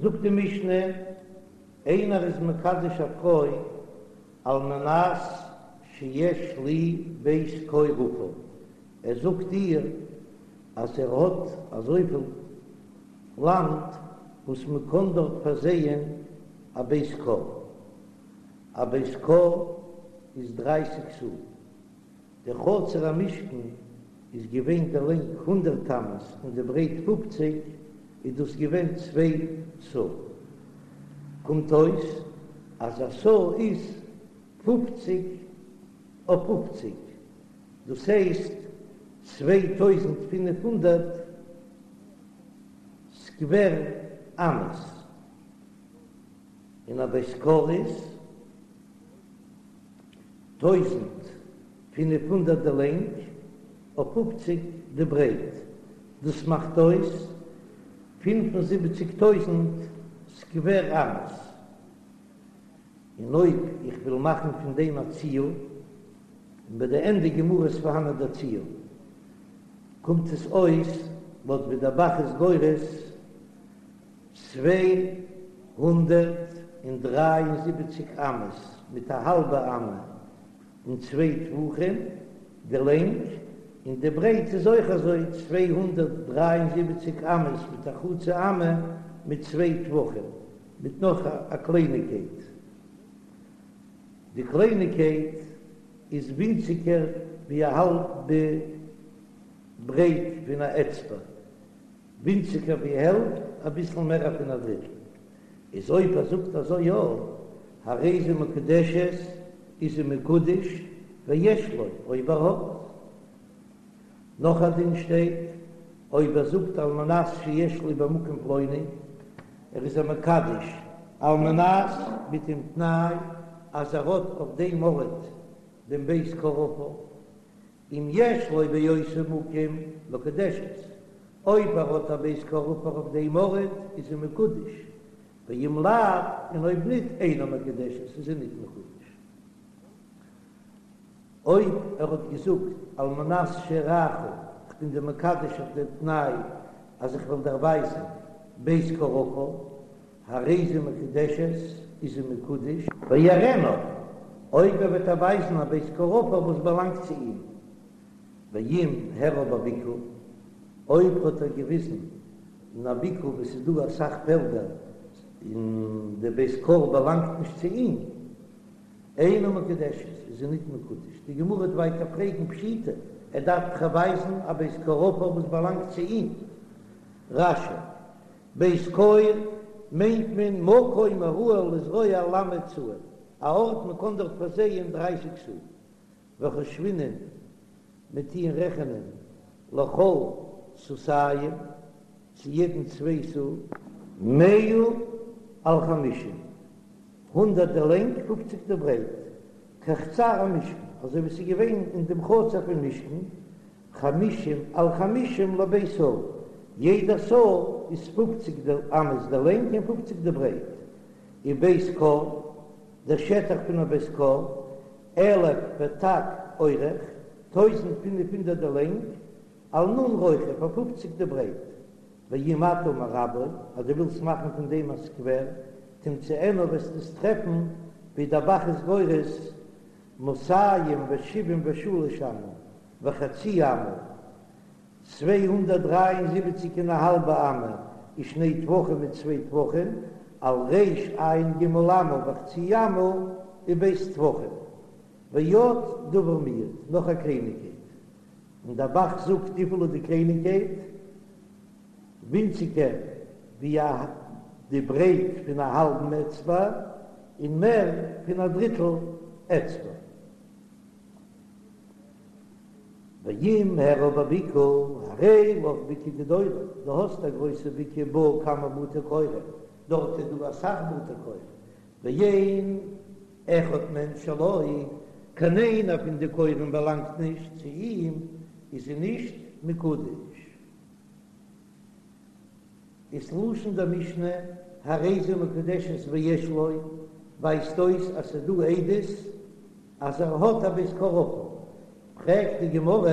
זאגט די משנה, איינער איז מקדש א פרוי על מנת שיש לי בית כור עפר, ער זאגט איר אז ער האט אזויפיל לאנד וואס מען קען דארט פארזייען א בית כור, א בית כור איז דרייסיג סאה. דער חצר המשכן איז געווען די לענג הונדרעט אמות און די ברייט פופציג, איז דאס געווען צוויי סאה. קומט אויס אז א סאה איז פופציג אויף פופציג, דאס הייסט 2500 סקווער אמות, און א בית כור איז. 1500 די לענג אויף פופציג די ברייט, דאס מאכט אויס 75 טויזנט סקווער אמות, און אויב איך וויל מאכן פון דעם א ציור, און ביי די ענדע גמרא איז פארהאנען דער ציור, קומט עס אויס לויט ווי דער ב"ח איז גורס 273 אמות מיט א האלבע אמה און צוויי טפחים די לענג, און די ברייט איז אויך אזוי 273 אמות מיט א חצי אמה מיט צוויי טפחים מיט נאך א קלייניגקייט, די קלייניגקייט איז ווינציגער ווי א האלבע ברייט פון א אצבע. ווינציגער ווי העלפט, אביסל מער פון א דריטל. איז אויב ער זאגט אזוי יא, הרי זו מקודשת, איז זי מקודש, ויש לו, אויב ער האט. נאך א דין שטייט, אויב ער זאגט על מנת שיש לי במקום פלוני, ער איז איר מקדש על מנת מיט דעם תנאי אז ער האט אויף דעם ארט דעם בית כור עפר, אם יש לו באותו מקום מקודשת, אויב ער האט א בית כור עפר אויף דעם ארט איז זי מקודש, ואם לאו, און אויב ניט אינה מקודשת איז זי ניט מקודש. אויב ער האט געזאגט על מנת שאראך, איך בין דיר מקדש אויף דעם תנאי אז איך וועל דיר ווייזן בית כור עפר, הרי זו מקודשת, איז זי מקודש. ויראנה, אויב ער וועט איר ווייזן א בית כור עפר וואס באלאנגט צו אים. ואם הראה בבקעה, אויב האט ער געוויזן אין א בקעה וואו ס'איז דא אסאך פעלדער און די בית כור באלאנגט נישט צו אים, אינה מקודשת, איז זי ניט מקודש. די גמרא וועט ווייטער פרעגן פשיטא, ער דארף דאך ווייזן א בית כור עפר וואס באלאנגט צו אים. רש"י, בית כור מיינט מען מקום הראוי לזרוע ל' סאה, א ארט מען קען דארט פארזייען דרייסיג סאה, וחושבינן מיר טוען רעכענען לכל סאתים צו יעדן צוויי סאה. מאה על חמישים, הונדערט די לענג, פופציג די ברייט, כחצר המשכן, אזוי ווי ס'איז געווען אין דעם חצר פון משכן, חמישים על חמישים לבית סאה, יעדע סאה איז פופציג די אמות די לענג און פופציג די ברייט, ובית כור, דער שטח פון א בית כור, אלף ות"ק אורך, 1500 די לענג, על נ' רוחב, אויף פופציג די ברייט, ואם אתה מרבעו, אז דו ווילסט מאכן פון דעם א סקווער, תמצאנו וועסטו עס טרעפן ווי דער ב"ח איז גורס מאתים ושבעים ושלש אמה וחצי אמה, 273 און א האלבע אמה, ושני טפחים מיט צוויי טפחים, על רע"ג אמה וחצי אמה וב' טפחים. ועוד דבר מועט, נאך א קלייניגקייט. און דער ב"ח זאגט וויפיל איז די קלייניגקייט? ווינציגער ווי א די ברייט פון א האלבן אצבע און מער פון א דריטל אצבע. ואם הראה בבקעה הרי לך בקעה גדולה, דו האסט א גרויסע בקעה בה כמה בתי כורים, דארט איז דא אסאך בתי כור, ואין אחד מהן שלו, קיין איינער פון די כורים באלאנגט נישט צו אים, איז זי נישט מקודש. איז לשון דער משנה הרי זו מקודשת ויש לו, ווייזט אויס אז ס'איז דא עדות אז ער האט א בית כור עפר. פרעגט די גמרא,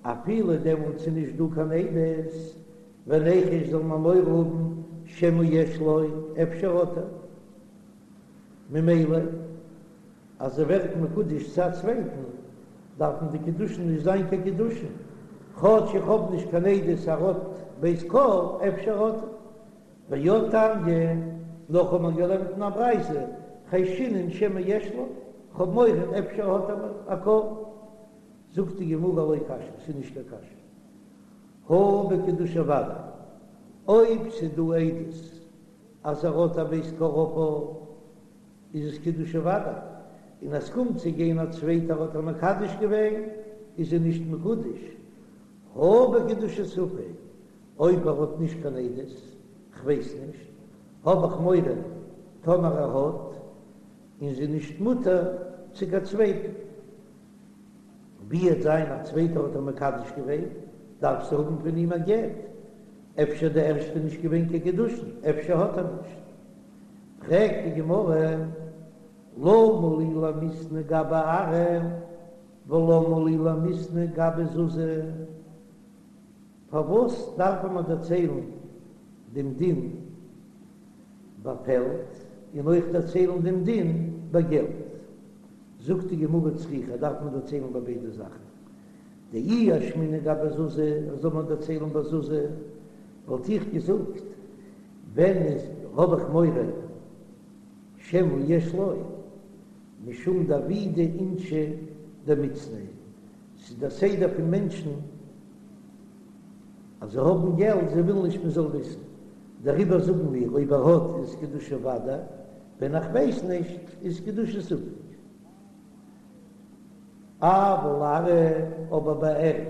אפילו דעמאלט ס'איז נישט דא קיין עדות, וניחוש זאל מען מורא האבן. שמא יש לו, אפשר האט ער. ממילא אז זי ווערט מקודש צו א צווייטן, דארפן די קידושין נישט זיין קיין קידושין, כאטש איך האב נישט קיין עדות אז ער האט בית כור, אפשר האט ער. ועוד תניא, נאך האט מען געלערנט אין א ברייתא, חיישינן שמא יש לו, כ'האב מורא אפשר האט ער א כור. זאגט די גמרא לא קשיא, ס'איז נישט קיין קשיא. הא בקידושי ודאי, אויב ס'איז דא עדות אז ער האט א בית כור עפר, איז עס קידושי ודאי, און אז ס'קומט צו גיין א צווייטער האט איר מקדש געווען, איז זי נישט מקודש. הא בקידושי ספק, אויב ער האט נישט קיין עדות, כ'ווייס נישט, האב איך מורא טאמער ער האט, און זי נישט מותר צו קיין צווייטן. ווי עט זיין א צווייטער האט איר מקדש געווען, דארף זי האבן פון אים א גט, אפשר די ערשטע נישט געווען קיין קידושין, אפשר האט ער נישט. פרעגט די גמרא, למה לי למיתני גבי ארעא ולמה לי למיתני גבי זוזי? פארוואס דארף מען דערציילן דעם דין ביי פעלד און אויך דערציילן דעם דין ביי געלט? זאגט די גמרא צריכא דארף מען דערציילן ביי ביידע זאכן, דאי אשמעינן גבי זוזי, זאל מען דערציילן ביי זוזי, וואלט איך געזאגט, ווען איז האב איך מורא שמא יש לו, משום דעבידי אינשי דמצנעי, ס'איז דער סדר פון מענטשן אז זיי האבן געלט, זיי ווילן נישט מען זאל וויסן, דעריבער זאגן מיר אויב ער האט איז קידושי ודאי, ווען איך ווייס נישט איז קידושי ספק. אבל ארעא, אבער ביי ערד,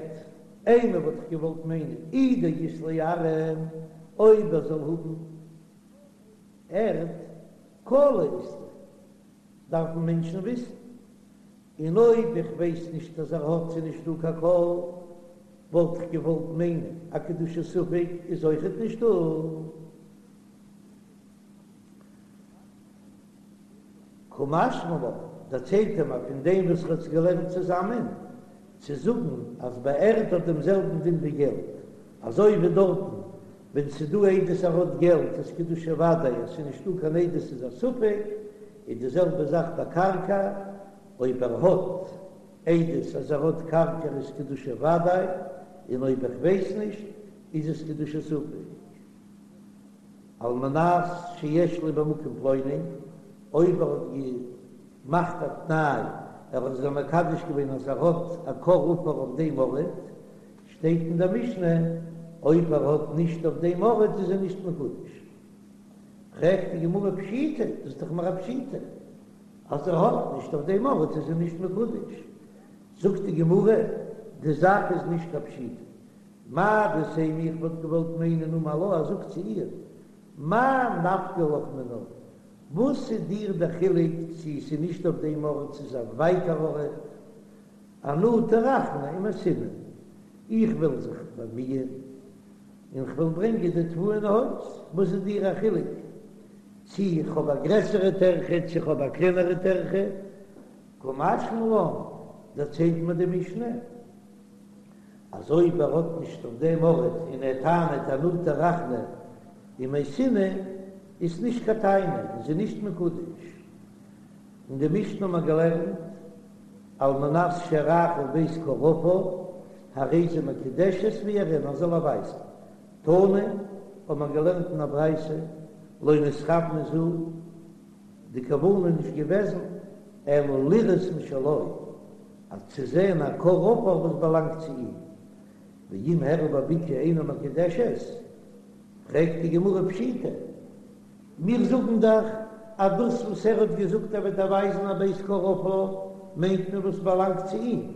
אימא וואלט איך געוואלט מיינען אי דאית ליה ארעא, אויב ער זאל האבן ערד, קלא אית ליה, דארפן מענטשן וויסן, און אויב איך ווייס נישט אז ער האט ס'איז נישט דא קיין קול, וואלט איך געוואלט מיינען א קידושי ספק איז אויכעט נישט דא. קא משמע לן, דערציילט ער מיר פון דעם וואס ער האט עס געלערנט צוזאמען, צו זאגן אז ביי ערד האט דעם זעלבן דין ווי געלט, אזוי ווי דארטן ווען ס'איז דא עדות ער האט געלט איז קידושי ודאי, אז ס'איז נישטא קיין עדות איז א ספק, איז די זעלבע זאך ביי קרקע, אויב ער האט עדות אז ער האט קרקע איז קידושי ודאי, און אויב איך ווייס נישט איז עס קידושי ספק. על מנת שיש לי במקום פלוני, אויב ער האט געמאכט א תנאי, ער האט זי מקדש געווען אז ער האט א כור עפר אויף דעם ארט, שטייט אין דער משנה, אויב ער האט נישט אויף דעם ארט איז ער נישט מקודש. פרעגט די גמרא פשיטא, דאס איז דאך מיר א פשיטא, אז ער האט נישט אויף דעם ארט איז ער נישט מקודש. זאגט די גמרא, די זאך איז נישט קיין פשיטא, מהו דתימא איך וואלט געוואלט מיינען אמר לה ער זאגט צו איר, מאי נפקא לך מינה, וואס איז דיר דער חילוק צו עס איז נישט אויף דעם ארט צו ס'איז א ווייטער ארט, אנא טרחנא ומייתינא, איך וועל זיך באמיען און כ'וועל ברענגען די תבואה אין הויז, וואס איז דיר א חילוק צו איך האב א גרעסערע טרחה צו איך האב א קלענערע טרחה, קא משמע לן, דערציילט מיר די משנה. אז אויב ער האט נישט אויף דעם ארט און ער טענה'ט אנא טרחנא ומייתינא איז נישט קיין טענה און זי נישט מקודש. אין די משנה האט מען געלערנט על מנת שאראך בית כור עפר הרי זו מקודשת ויראנה זאל ער ווייזן. תנא האט מען געלערנט אין א ברייתא לא נתכוונה זו די כוונה איז נישט געוועזן אלא לראות משלו אז צו זען א כור עפר וואס באלאנגט צו אים, ואם הראה בבקעה אינה מקודשת, פרעגט די גמרא פשיטא, מיר זאגן דאך אז דאס וואס ער האט געזאגט ער וועט איר ווייזן א בית כור עפר מיינט מען וואס באלאנגט צו אים,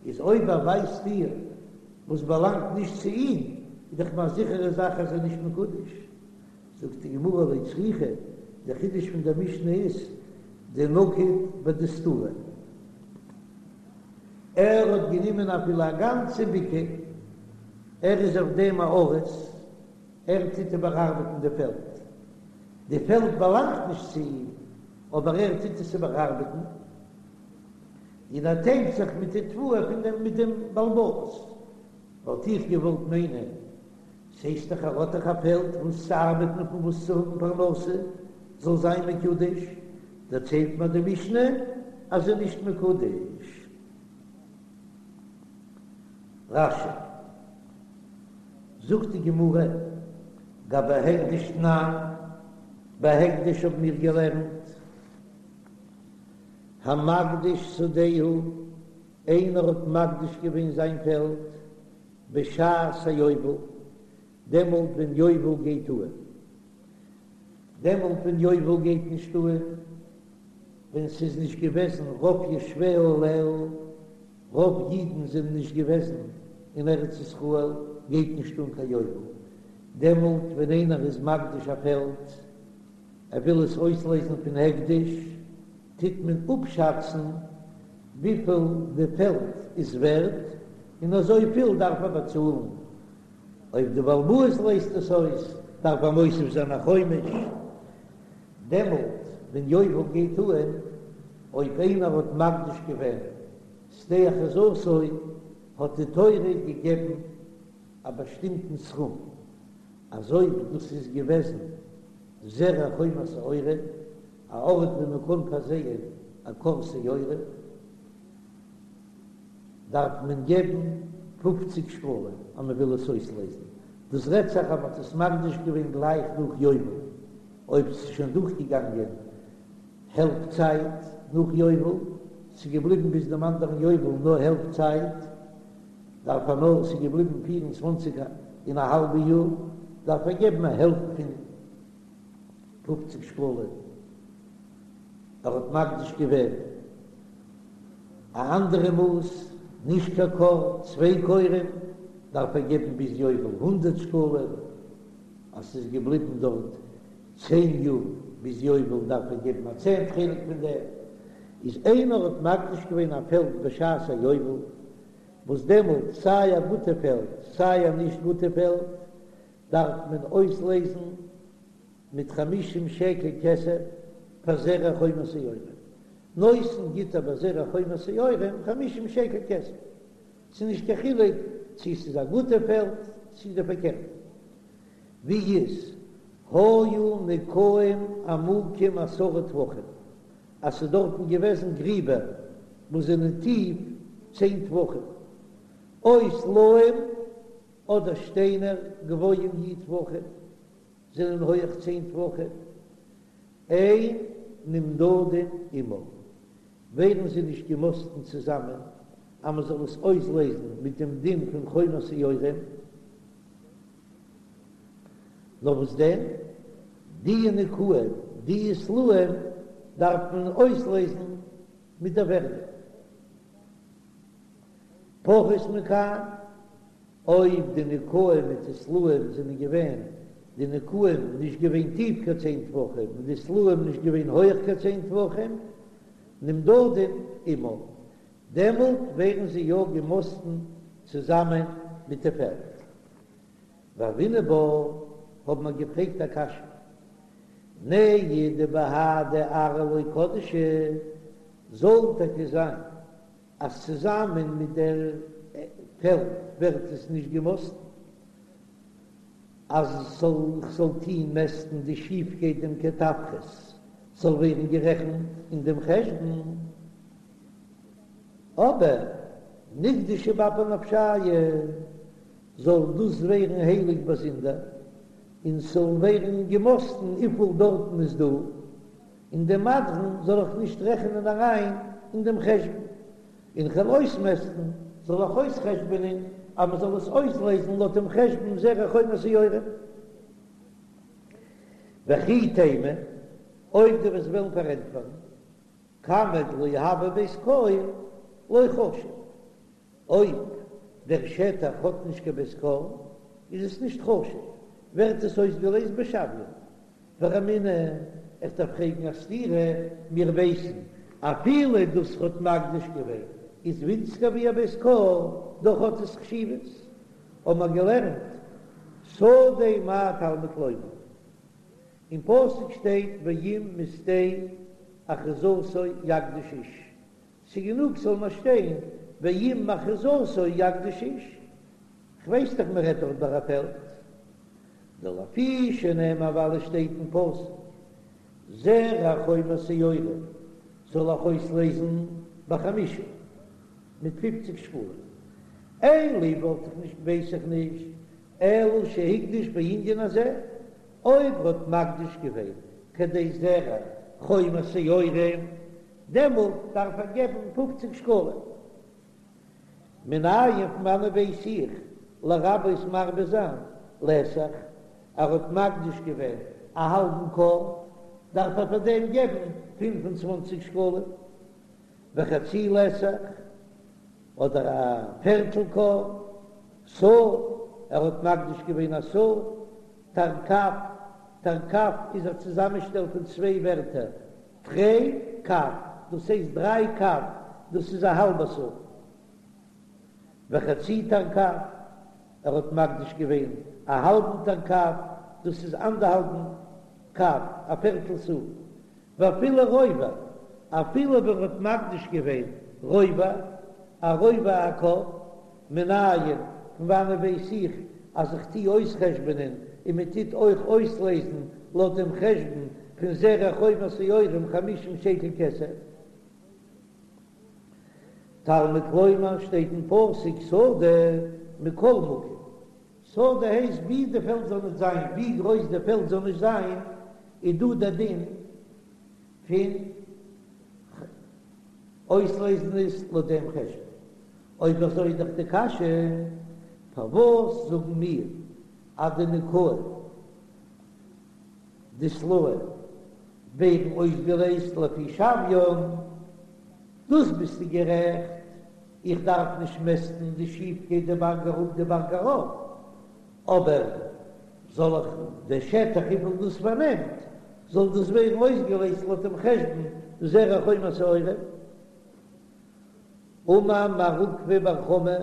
איז אויב ער ווייזט איר וואס באלאנגט נישט צו אים, איז דאך מיר א זיכערע זאך אז ער איז נישט מקודש. זאגט די גמרא לא צריכא, דער חידוש פון דער משנה איז דנקיט בדסתורא, ער האט גענומען אפילו א גאנצע בקעה, ער איז אויף דעם א אריס, ער טוט איבערארבעטן די פעלד, די פעלד באלאנגט נישט צו אים, אבער ער טוט עס איבערארבעטן, און ער טיילט זיך מיט די תבואה פון דעם מיט דעם בעל הבית, וואלט איך געוואלט מיינען. ס'הייסט דאך ער האט דאך א פעלד וואס צו ארבעטן און פון וואס צו האבן פרנסה, זאל זיין מקודש, דערציילט מיר די משנה אז זי איז נישט מקודש. רש"י, זאגט די גמרא, גבי הקדש תנן, ביי הקדש האבן מיר געלערנט, המקדיש שדהו, איינער האט מקדיש געווען זיין פעלד בשעת היובל, דעמאלט ווען יובל גייט אהן, דעמאלט ווען יובל גייט נישט אהן, ווען ס'איז נישט געוועזן רוב יושביה עליה, רוב אידן זענען נישט געוועזן אין ארץ ישראל, גייט נישט אן קיין יובל, דעמאלט ווען איינער איז מקדיש א פעלד, ער וויל עס אויסלעזן פון הקדש, טוט מען אפשאצן וויפיל די פעלד איז ווערט, און אזויפיל דארף ער באצאלן. אויב די בעל הבית לייזט עס אויס, דארף ער מוסיף זיין א חומש. דעמאלט ווען יובל גייט אהן, אויב איינער האט מקדיש געווען שדה אחוזתו, האט די תורה געגעבן א באשטימטן סכום, אז אויב דאס איז געוועזן זרע חומר שעורה, א ארט ווי מען קען פארזייען א כור שעורה, דארף מען געבן פופציג שקלים אז מען וויל עס אויסלעזן, דאס רעדט זיך אז מען האט עס מקדיש געווען גלייך נאך יובל, אויב ס'איז שוין דורכגעגאנגען העלפט צייט נאך יובל, ס'איז געבליבן ביז דעם אנדערן יובל נאר העלפט צייט, דארף ער נאר, ס'איז געבליבן פיר און צוואנציג און א האלבע יאר, דארף ער געבן א העלפט פון פופציג שקלים. ער האט מקדיש געווען א אנדערע מאס, נישט קיין כור, צוויי כורים, דארף ער געבן ביז יובל הונדערט שקלים, אז ס'איז געבליבן דארט צען יאר ביז יובל דארף ער געבן א צענט חלק פון דעם, איז איינער האט מקדיש געווען א פעלד בשעת היובל, וואס דעמאלט סיי א גוטע פעלד סיי א נישט גוטע פעלד דארף מען אויסלעזן מיט חמישים שקל כסף פאר זרע חומר שעורים, נותן גיט ער ביי זרע חומר שעורים חמישים שקל כסף, ס'איז נישט קיין חילוק צו ס'איז א גוטע פעלד צו די פארקערטע, ווי איז היו נקעים עמוקים עשרה טפחים, אז ס'איז דארטן געוועזן גריבער וואס זענען טיף צען טפחים, או סלעים אדער שטיינער גבוהים י' טפחים. זענען הויעך צען טפחים, אין נמדדין עמה, ווערן זיי נישט געמאסטן צוזאמען אז מען זאל עס אויסלעזן מיט דעם דין פון חומר שעורים, נאר וואס דען, די נקעים, די סלעים דארף מען אויסלעזן מיט דער ווערדע. פחות מכאן, אויב די נקעים מיט די סלעים זענען געווען, די נקעים נישט געווען טיף קיין צען טפחים און די סלעים נישט געווען הויך קיין צען טפחים, נמדדין עמה, דעמאלט ווערן זיי יא געמאסטן צוזאמען מיט די פעלד. והוינן בה, האבן מיר געפרעגט א קשיא, נהי דבהדי ארעא לא קדשא, זאל טאקע זיין אז צוזאמען מיט דער פעלד ווערט עס נישט געמאסטן, אז ס'זאל איך זאל טוהן מעסטן די שיפקייט דעם קטפרס זאל ווערן גערעכנט אין דעם חשבון, אבער נקדשו באפי נפשייהו זאל דאס ווערן הייליג באזונדער, און ס'זאל ווערן געמאסטן וויפיל דארטן איז דא. און דעם מדרון זאל איך נישט רעכענען אריין אין דעם חשבון, און כ'וועל אויסמעסטן, זאל איך אויסחשבונען אז מען זאל עס אויסלעזן לויט דעם חשבון זרע חומר שעורים. וכי תימא, אויב דו וועסט וועלן פארענטפערן, כמה דלא הוי בית כור לא חשיב, אויב דער שטח האט נישט קיין בית כור איז עס נישט חשוב, ווערט עס אויסגעלעזט בשוויו. ורמינהו, איך דארף פרעגן א סתירה, מיר ווייסן אפילו דאס האט מקדיש געווען איז ווינציגער ווי א בית כור, דאך האט עס חשיבות, האבן מיר געלערנט שדה מה תלמוד לומר, אין פסוק שטייט ואם משדה אחוזתו יקדיש איש, ס'גענוג ס'זאל נאר שטיין ואם מאחוזתו יקדיש איש, כ'ווייס דאך מ'רעדט דארט ביי א פעלד. דלפי שנאמר ווייל עס שטייט אין פסוק זרע חומר שעורים זאל איך אויסלעזן בחמישים מיט פופציג שקלים, אין לי וואלט איך נישט ווייס איך נישט אלא שהקדיש בענין הזה, אויב ער האט מקדיש געווען כדי זרע חומר שעורים דעמאלט דארף ער געבן פופציג שקלים. מנין פון וואנען ווייס איך לרבות מרבה זיין לתך, ער האט מקדיש געווען א האלבן כור, דארף ער פאר דעם געבן 25 שקלים, וחצי לתך, אדער א פערטל כור, סאה, ער האט מקדיש געווען א סאה, תרקב, תרקב איז א צוזאמענשטעל פון צוויי ווערטער, תרי קב, דאס הייסט דריי קב, דאס איז א האלבע סאה. וחצי תרקב, ער האט מקדיש געווען א האלבן תרקב, דאס איז אנדערהאלבן קב, א פערטל סאה. ואפילו רובע, אפילו ווען ער האט מקדיש געווען רובע, א רובע הכור, מנין, פון וואנען ווייס איך אז איך טוה אויסחשבונען און מען טוט אויך אויסלעזן לויט דעם חשבון פון זרע חומר שעורים חמישים שקל כסף? תלמוד לומר שטייט אין פסוק שדה מכל מקום, שדה הייסט ווי די פעלד זאל נישט זיין, ווי גרויס די פעלד זאל נישט זיין, איז דא דער דין פון אויסלעזן עס לויט דעם חשבון. אויב אזוי איז דאך די קשיא, פארוואס זאגן מיר אז די נקעים די סלעים ווערן אויסגעלעזט לפי שוויין? דאס ביסטו גערעכט, איך דארף נישט מעסטן די שיפקייט די בארג אראפ די בארג ארויף, אבער זאל איך די שטח וויפיל דאס פארנעמט זאל דאס ווערן אויסגעלעזט לויט דעם חשבון זרע חומר שעורים? אמר מר עוקבא בר חמא,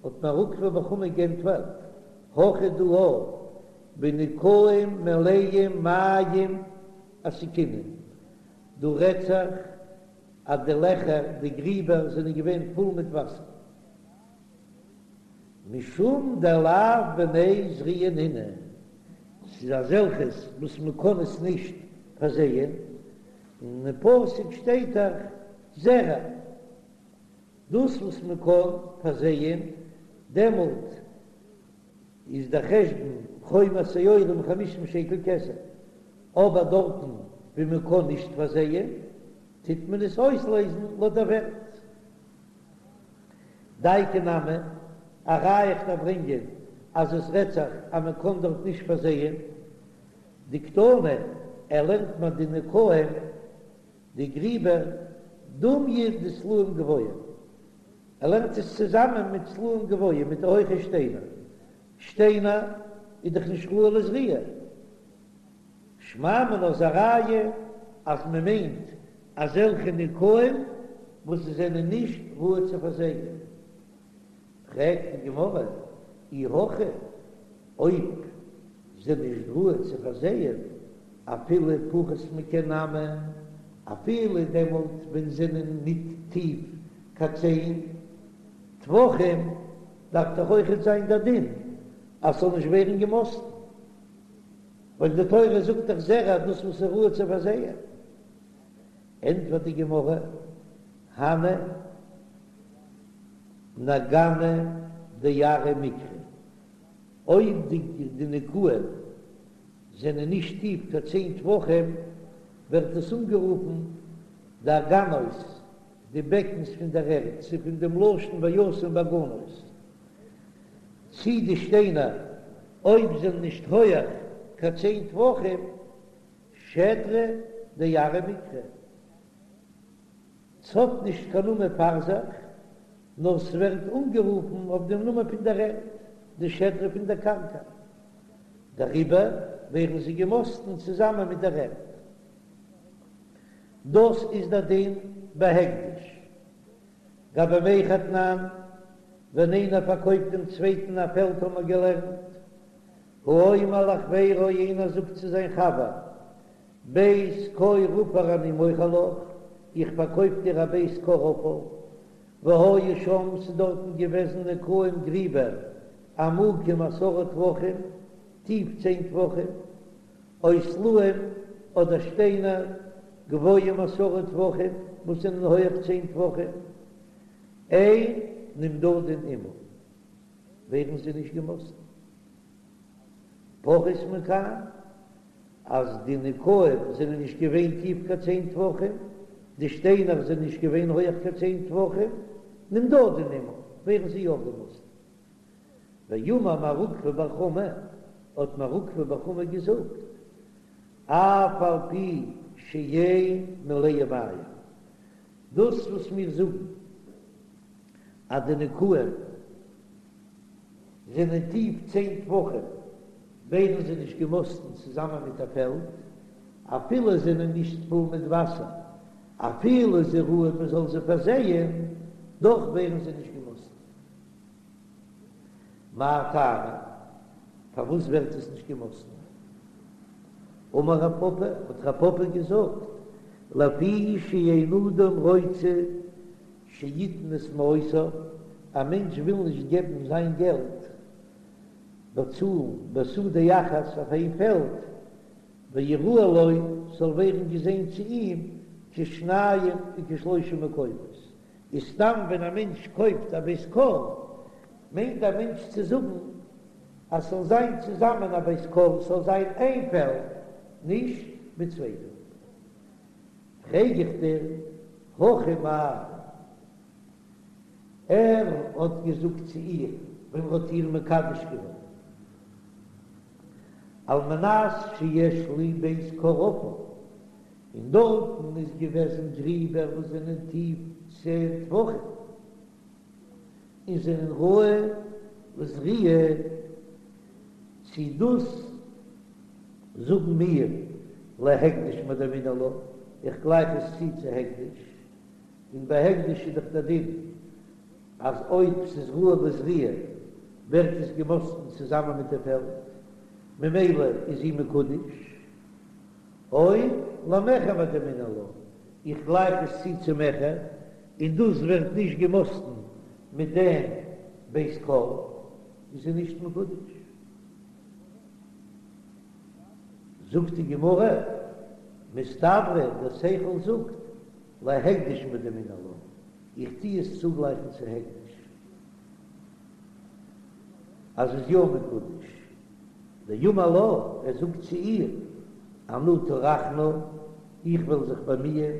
האט מר עוקבא בר חמא גענטפערט, הכא דא בנקעים מלאים מים עסקינן, דא רעדט זיך אז די לעכער, די גריבער זענען געווען פול מיט וואסער. משום דלאו בני זריעה נינהו, ס'איז אזעלכעס וואס מ'קען עס נישט פארזייען, און אין פסוק שטייט דאך זרע, דאס וואס מ'קען פארזייען, דעמאלט איז דער חשבון חומר שעורים חמישים שקל כסף, אבער דארטן ווי מ'קען נישט פארזייען, טוט מען עס אויסלעזן לויט דער ווערט. דייקא נמי, א ראיה איך דארף ברענגען אז עס רעדט זיך אז מען קען דארט נישט פארזייען דקתני, ער לערנט מיר די נקעים די גריבער דומיא דסלעים גבוהים, ער לערנט עס צוזאמען מיט סלעים גבוהים מיט די הויכע שטיינער, שטיינער איז דאך נישט ראוי לזריעה, שמע מינה איז א ראיה אז מען מיינט אזעלכע נקעים וואס זיי זענען נישט ראוי צו פארזייען. פרעגט די גמרא, אי הכי, אויב זענען נישט ראוי צו פארזייען, אפילו פחות מקן נמי, אפילו דעמאלט ווען זענען ניט טיף קיין צען טפחים, דארף דאך אויכעט זיין דער דין אז ס'זאל נישט ווערן געמאסטן. ווייל די תורה זאגט דאך זרע דאס וואס איז ראוי צו פארזייען, ענטפערט די גמרא, הני נגאני דארעא מיקרו, אויב די נקעים זענען נישט טיף קיין צען טפחים, ווערט עס אנגערופן די אגנות, די בעקנס פון דער ערד, ס'איז פון דעם לשון וישם באגנות. צי די שטיינער אויב זענען נישט הויעך קיין צען טפחים, שדרא דארעא מיקרי, ס'האט נישט קיין נאמען פאר זיך, נאר ס'ווערט אנגערופן אויף דעם נאמען פון דער ערד, די שדרה פון דער קרקע, דעריבער ווערן זיי געמאסטן צוזאמען מיט דער ערד. דאס איז דער דין בהקדש. גבי מכר תנן, ווען איינער פארקויפט דעם צווייטן א פעלד האבן מיר געלערנט, האומר לחבירו איינער זאגט צו זיין חבר, בית כור עפר אני מוכר לך, איך פארקויף דיר א בית כור עפר, והיו שם ס'איז דארטן געוועזן נקעים גריבער עמוקים עשרה טפחים. טיף צען טפחים, או סלעים אדער שטיינער גבוהים עשרה טפחים וואס זענען הויעך צען טפחים, אין נמדדין עמה, ווערן זיי נישט געמאסטן. פחות מכאן, אז די נקעים זענען נישט געווען טיף קיין צען טפחים, די שטיינער זענען נישט געווען הויעך קיין צען טפחים, נמדדין עמה, ווערן זיי יא געמאסטן. ואמר מר עוקבא בר חמא, האט מר עוקבא בר חמא געזאגט, אף על פי שאין מלאה מים, דאס וואס מיר זאגן אז די נקעים זענען טיף צען טפחים, ווערן זיי נישט געמאסטן צוזאמען מיט א פעלד, אפילו זענען נישט פול מיט וואסער, אפילו זיי ראוי מען זאל זיי פארזייען, דאך ווערן זיי נישט געמאסטן. מאי טעמא? פארוואס ווערט עס נישט געמאסטן? אמר רב פפא, האט רב פפא געזאגט, לפי שאין אדם רוצה שיתן את מעותיו, א מענטש וויל נישט געבן זיין געלט, באצאלן בשדה אחת אויף איין פעלד, ויראה לו, ס'זאל ווערן געזען צו אים, כשניים וכשלושה מקומות, איז סתם ווען א מענטש קויפט א בית כור, מיינט א מענטש צו זאגן אז ס'זאל זיין צוזאמען א בית כור, ס'זאל זיין איין פעלד, נישט מיט צוויי פעלדער. פרעג איך דיר, הכא מאי? ער האט געזאגט צו איר ווען ער האט איר מקדש געווען, על מנת שיש לי בית כור עפר, און דארטן איז געוועזן גריבער וואס זענען טיף צען טפחים, און זענען ראוי לזריעה, צי דאס זאגן מיר להקדש מדמינן לה, איך גלייך עס צו צו הקדש, און ביי הקדש איז דאך דער דין אז אויב ס'איז ראוי לזריעה ווערט עס געמאסטן צוזאמען מיט די פעלד, ממילא איז זי מקודש. או למכר מדמינן לה, איך גלייך עס צו צו מכר, און דאס ווערט נישט געמאסטן מיט דעם בית כור, איז זי נישט מקודש. זאגט די גמרא, מסתברא דער שכל זאגט, להקדש מדמינן לה, איך טו עס צוגלייכן צו הקדש, אז זי איז יא מקודש. דאמר לה, ער זאגט צו איר, אנא טרחנא, איך וועל זיך באמיען,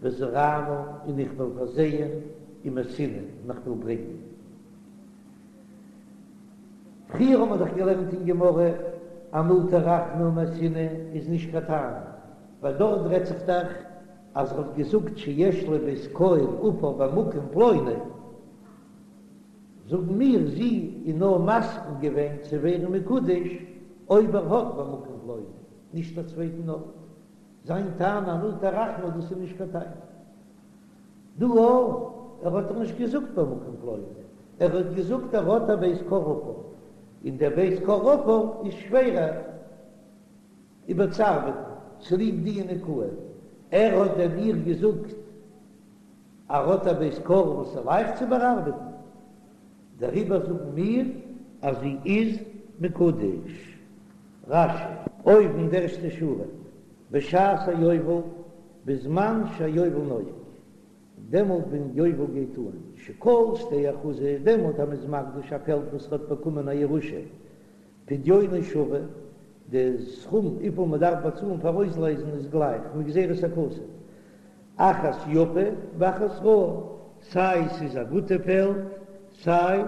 וזרענא, און איך וועל פארזייען, ומייתינא, און איך וועל ברענגען. פריער האבן מיר דאך געלערנט אין גמרא, אנא טרחנא ומייתינא איז נישט קיין טענה, ווייל דארט רעדט זיך דאך אז ער האט געזאגט שיש לי בית כור עפר במקום פלוני, זאגן מיר, זי איז נאר מסכים געווען צו ווערן מקודש אויב ער האט במקום פלוני, נישט א צווייטן ארט. זיין טענה אנא טרחנא דאס איז נישט קיין טענה. דא אויך, ער האט דאך נישט געזאגט במקום פלוני, ער האט געזאגט ער האט א בית כור עפר, און דער בית כור עפר איז שווערער איבערצוארבעטן צוליב די נקעים. ער האט דען איר געזאגט ער האט א בית כור וואס איז לייכט צו באארבעטן, דעריבער זאגן מיר אז זי איז מקודש. רש"י. אויבן די ערשטע שורה, בשעת היובל, בזמן שהיובל נוהג, דעמאלט ווען יובל גייט אן, שכל שדה אחוזה, דעמאלט אז מ'איז מקדיש א פעלד וואס האט באקומען א ירושה, פדיונו שווה, די סכום וויפיל מען דארף באצאלן פאר אויסלייזן איז גלייך מגזירת הכתוב, אחת יפה ואחת רעה, סיי ס'איז א גוטע פעלד סיי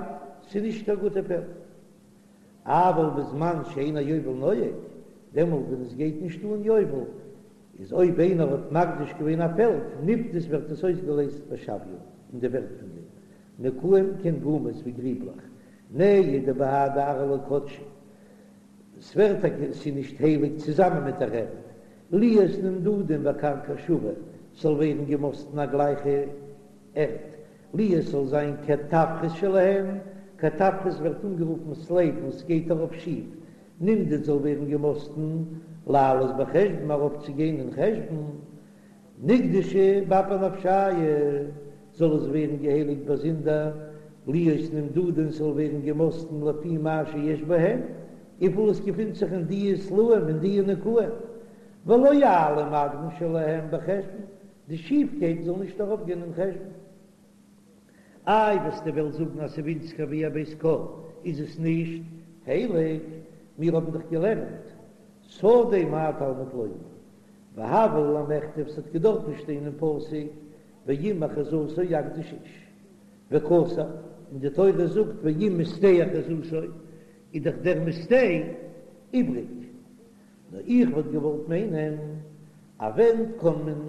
ס'איז נישט קיין גוטע פעלד. אבל בזמן שאין היובל נוהג, דעמאלט ווען עס גייט נישט אן יובל, איז אויב איינער האט מקדיש געווען א פעלד, נפדית ווערט עס אויסגעלייזט בשוויה, אין די ווערט פון דעם נקעים כעין גומות ווי גריבלעך, נהי דבהדי ארעא לא קדשא, ס'ווערט טאקע ס'איז נישט הייליג צוזאמען מיט דער ערד, להיות נמדדין בקרקע שווה, ס'זאל ווערן געמאסטן א גלייכע ערד, להיות ס'זאל זיין קטפרס שלהן, קטפרס ווערט אנגערופן סלעיט וואס גייט ארויף שיף, נמדד זאל ווערן געמאסטן לעלות בחשבון ארויפצוגיין אין חשבון, נקדשו באפי נפשייהו, זאל עס ווערן געהייליגט באזונדער, להיות נמדדין ס'זאל ווערן געמאסטן לפי מה שיש בהן. וויפיל עס געפינט זיך אין דיע סלעים אין דיע נקעים, ולא יעלה מאדמון שלהם בחשבון, די שיפקייט זאל נישט ארויפגיין אין חשבון. איי וועסטו וועלן זאגן אז ס'ווינציגער ווי א בית כור איז עס נישט הייליג, מיר האבן דאך געלערנט שדה מה תלמוד לומר, והוה ליה למיכתב ס'האט געדארפן שטיין אין פסוק ואם אחוזתו יקדיש איש וכתב, און די תורה זאגט ואם משדה אחוזתו איז דאך דער משדה איבריג, נאר איך וואלט געוואלט מיינען אז ווען קען מען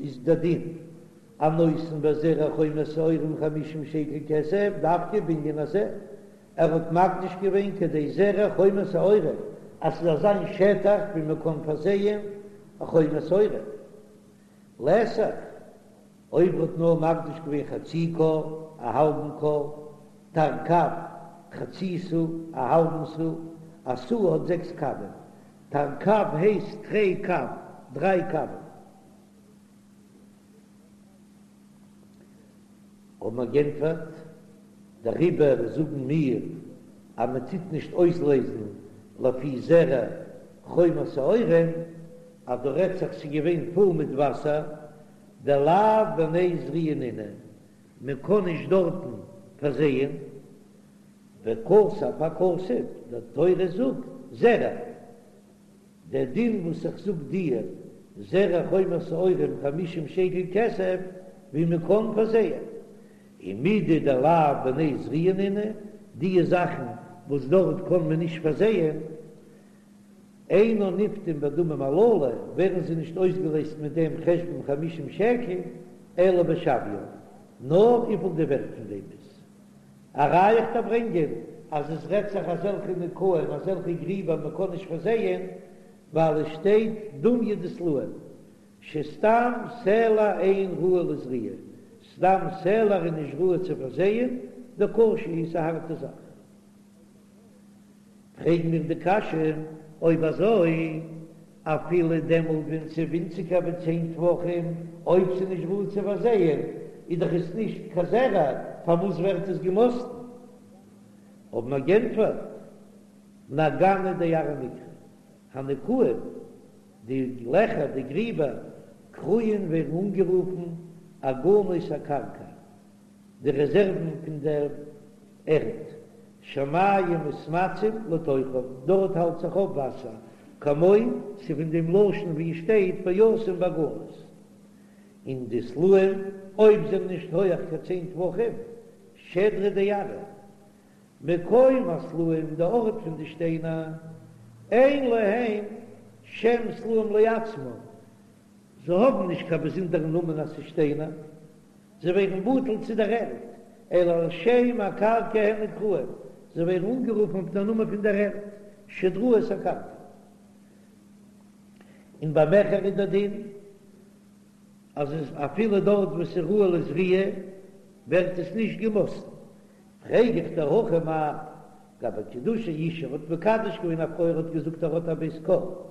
איז דער דין הנותן בזרע חומר שעורים חמישים שקל כסף דווקא בענין הזה, ער האט מקדיש געווען כדי זרע חומר שעורים אז ס'זאל זיין שטח ווי מען קען פארזייען א חומר שעורים. לתך, אויב ער האט נאר מקדיש געווען חצי כור, א האלבן כור, תרקב, חצי סאה, א האלבן סאה, א סאה האט זעקס קבים, תרקב הייסט תרי קב, דריי קבים. האבן מיר גענטפערט, דעריבער זאגן מיר אז מען טוט נישט אויסלעזן לפי זרע חומר שעורים, אז דא רעדט זיך ס'איז געווען פול מיט וואסער, דלאו בני זריעה נינהו, מען קען נישט דארטן פארזייען, וכתב הכתוב, די תורה זאגט זרע. דער דין וואס איך זאג דיר, זרע חומר שעורים חמישים שקל כסף, ווי מען קען פארזייען. ומידי דלאו בני זריעה נינהו, דיע זאכן וואס דארט קען מען נישט פארזייען, אינן נפדין בדמים הללו, ווערן זיי נישט אויסגעלעזט מיט דעם חשבון חמישים שקל, אלא בשוויין, נאר וויפיל די ווערט פון דעם איז. א ראיה איך דיר ברענגען אז עס רעדט זיך אזעלכע נקעים אזעלכע גריבער מען קען נישט פארזייען ווייל עס שטייט דומיא דסלעים שסתם סלע אין ראוי לזריעה סתם סלע איז נישט ראוי צו פארזייען דקשה איז א הארטע זאך. פרעגן מיר די קשיא, אויב אזוי אפילו דעמאלט ווען ס'איז ווינציגער ווי צען טפחים, אויב ס'איז נישט ראוי צו פארזייען, איז דאך עס נישט קיין זרע, פארוואס ווערט עס געמאסטן? האבן מיר גענטפערט, נגנא דארעא מיקרי, הנקעים, די לעכער, די גריבער, קרויין ווערן אנגערופן אגנות הקרקע, די רעזערוון פון דער ערד, שמים מתמצים לתוכם, דארט האלט זיך אויף וואסער, כמו ס'איז פון דעם לשון ווי עס שטייט וישם באגנות. און די סלעים, אויב זענען נישט הויעך קיין צען טפחים, שדרא דארעא, מקום הסלעים, די ארט פון די שטיינער, אין להם שם סלעים לעצמם, זיי האבן נישט קיין באזונדערן נאמען אז ס'איז שטיינער, זיי ווערן בטל צו דער ערד, אלא על שם הקרקע הן נקראים, זיי ווערן אנגערופן אויף דער נאמען פון דער ערד, שדראות הקרקע. און ביי מכר איז דער דין אז עס אפילו דארט וואו ס'איז ראוי לזריעה ווערט עס נישט געמאסטן. פרעג איך דיר הכא מאי גבי קידושי אשה, ער האט מקדש געווען א פרוי ער האט געזאגט ער האט א בית כור,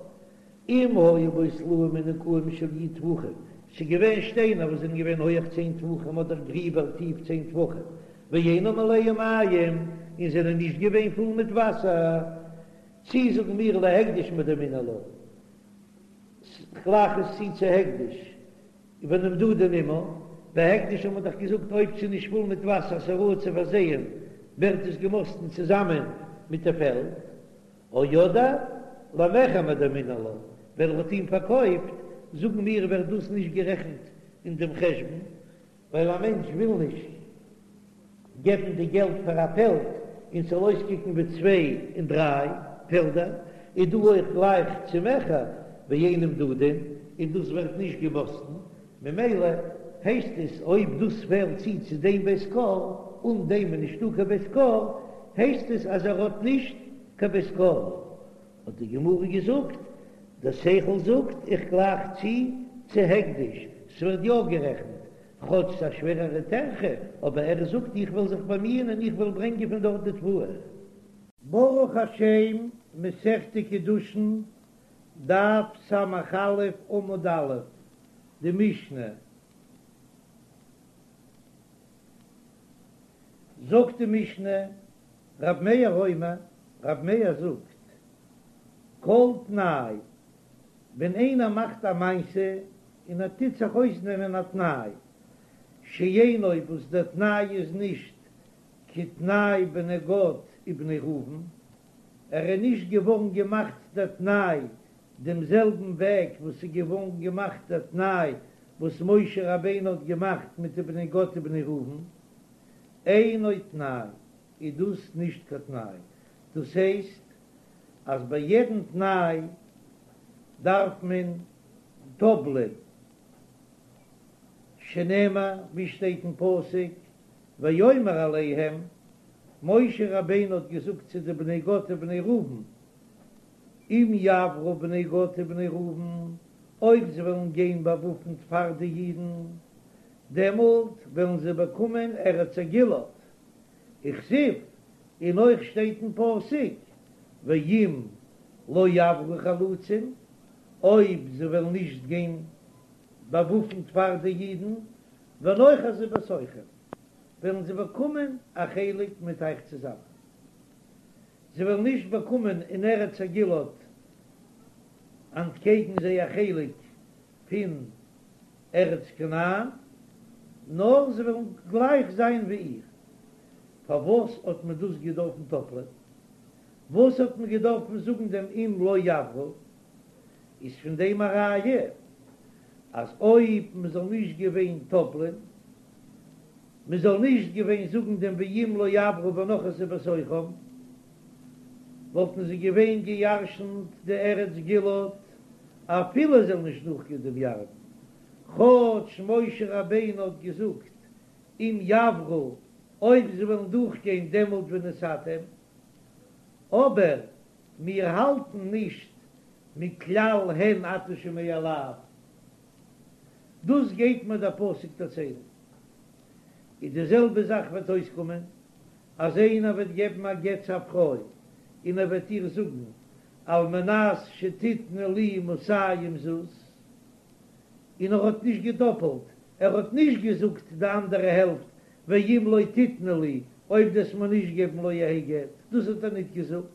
אם היו בו סלעים ונקעים של י' טפחים, ס'איז געווען שטיינער וואס זענען געווען הויעך צען טפחים אדער גריבער טיף צען טפחים, ואינם מלאים מים, און זענען נישט געווען פול מיט וואסער, צי זאגן מיר להקדש מדמינן לה, כ'גלייך עס צו צו הקדש, ונמדדין עמה, ביי הקדש האט מען דאך געזאגט אויב ס'איז נישט פול מיט וואסער ס'איז ראוי צו פארזייען, ווערט עס געמאסטן צוזאמען מיט די פעלד. או אדער למכר מדמינן לה, ווען ער האט אים פארקויפט, זאגן מיר ווערט דאס נישט גערעכנט אין דעם חשבון, ווייל א מענטש וויל נישט געבן די געלט פאר א פעלד און ס'זאל אויסקוקן ווי צוויי און דריי פעלדער, איז דא אויך גלייך צו מכר ואין נמדדין, און דאס ווערט נישט געמאסטן, ממילא הייסט עס אויב דאס פעלט צו צו דעם בית כור, אן דעם איז נישטא קיין בית כור, הייסט עס אז ער האט נישט קיין בית כור. האט די גמרא געזאגט, דער שכל זאגט איך גלייך צו צו הקדש, ס'ווערט יא גערעכנט, כאטש ס'איז א שווערערע טרחה, אבער ער זאגט איך וועל זיך באמיען און איך וועל ברענגען פון דארט די תבואה. ברוך השם, מסכת קידושין, דף ס"א עמוד א', די משנה. זאגט די משנה, רב מאיר אומר, רב מאיר זאגט, כל תנאי, ווען איינער מאכט א מעשה און ער טוט זיך אויסנעמען א תנאי, שאינו וואס דער תנאי איז נישט כתנאי בני גד ובני ראובן, ער איז נישט געווארן געמאכט דער תנאי דעם זעלבן וועג וואס איז געווארן געמאכט דער תנאי וואס משה רבינו האט געמאכט מיט די בני גד ובני ראובן, אינו תנאי, איז דאס נישט קיין תנאי, דאס הייסט אז ביי יעדן תנאי דארף מען טאפלען, שנאמר ווי שטייט אין פסוק ויאמר אליהם, משה רבינו האט געזאגט צו די בני גד ובני ראובן, אם יעברו בני גד ובני ראובן, אויב זיי וועלן גיין באוואפנט פאר די אידן, דעמאלט וועלן זיי באקומען ארץ הגלעד, וכתיב, און אויך שטייט אין פסוק, ואם לא יעברו חלוצים, אויב זיי וועלן נישט גיין באוואפנט פאר די אידן, ונאחזו בתוכם, וועלן זיי באקומען א חלק מיט אייך צוזאמען. זיי וועלן נישט באקומען אין ארץ הגלעד אנטקעגן זיי א חלק פון ארץ כנען, נאר זיי וועלן גלייך זיין ווי איר. פארוואס האט מען דאס געדארפן טאפלען? וואס האט מען געדארפן זאגן דעם אם לא יעברו? איז פון דעם א ראיה אז אויב מען זאל נישט געווען טאפלען, מען זאל נישט געווען זאגן דעם ואם לא יעברו ונחתו בתוכם, וואלטן זיי געווען געירשנט די ארץ גלעד אפילו זיי זאלן נישט דורכגיין דעם ירדן, כאטש משה רבינו האט געזאגט אם יעברו אויב זיי וועלן דורכגיין דעמאלט ונתתם, אבער מיר האלטן נישט מכלל הן אתה שומע לאו, דאס גייט מיר דער פסוק דערציילן, איז די זעלבע זאך וועט אויסקומען אז איינער וועט געבן א גט צו א פרוי און ער וועט איר זאגן על מנת שתתני לי מאתים זוז, און ער האט נישט געדאפעלט, ער האט נישט געזאגט די אנדערע העלפט ואם לא תתני לי, אויב דו וועסט מיר נישט געבן לא יהא גט, דאס האט ער ניט געזאגט,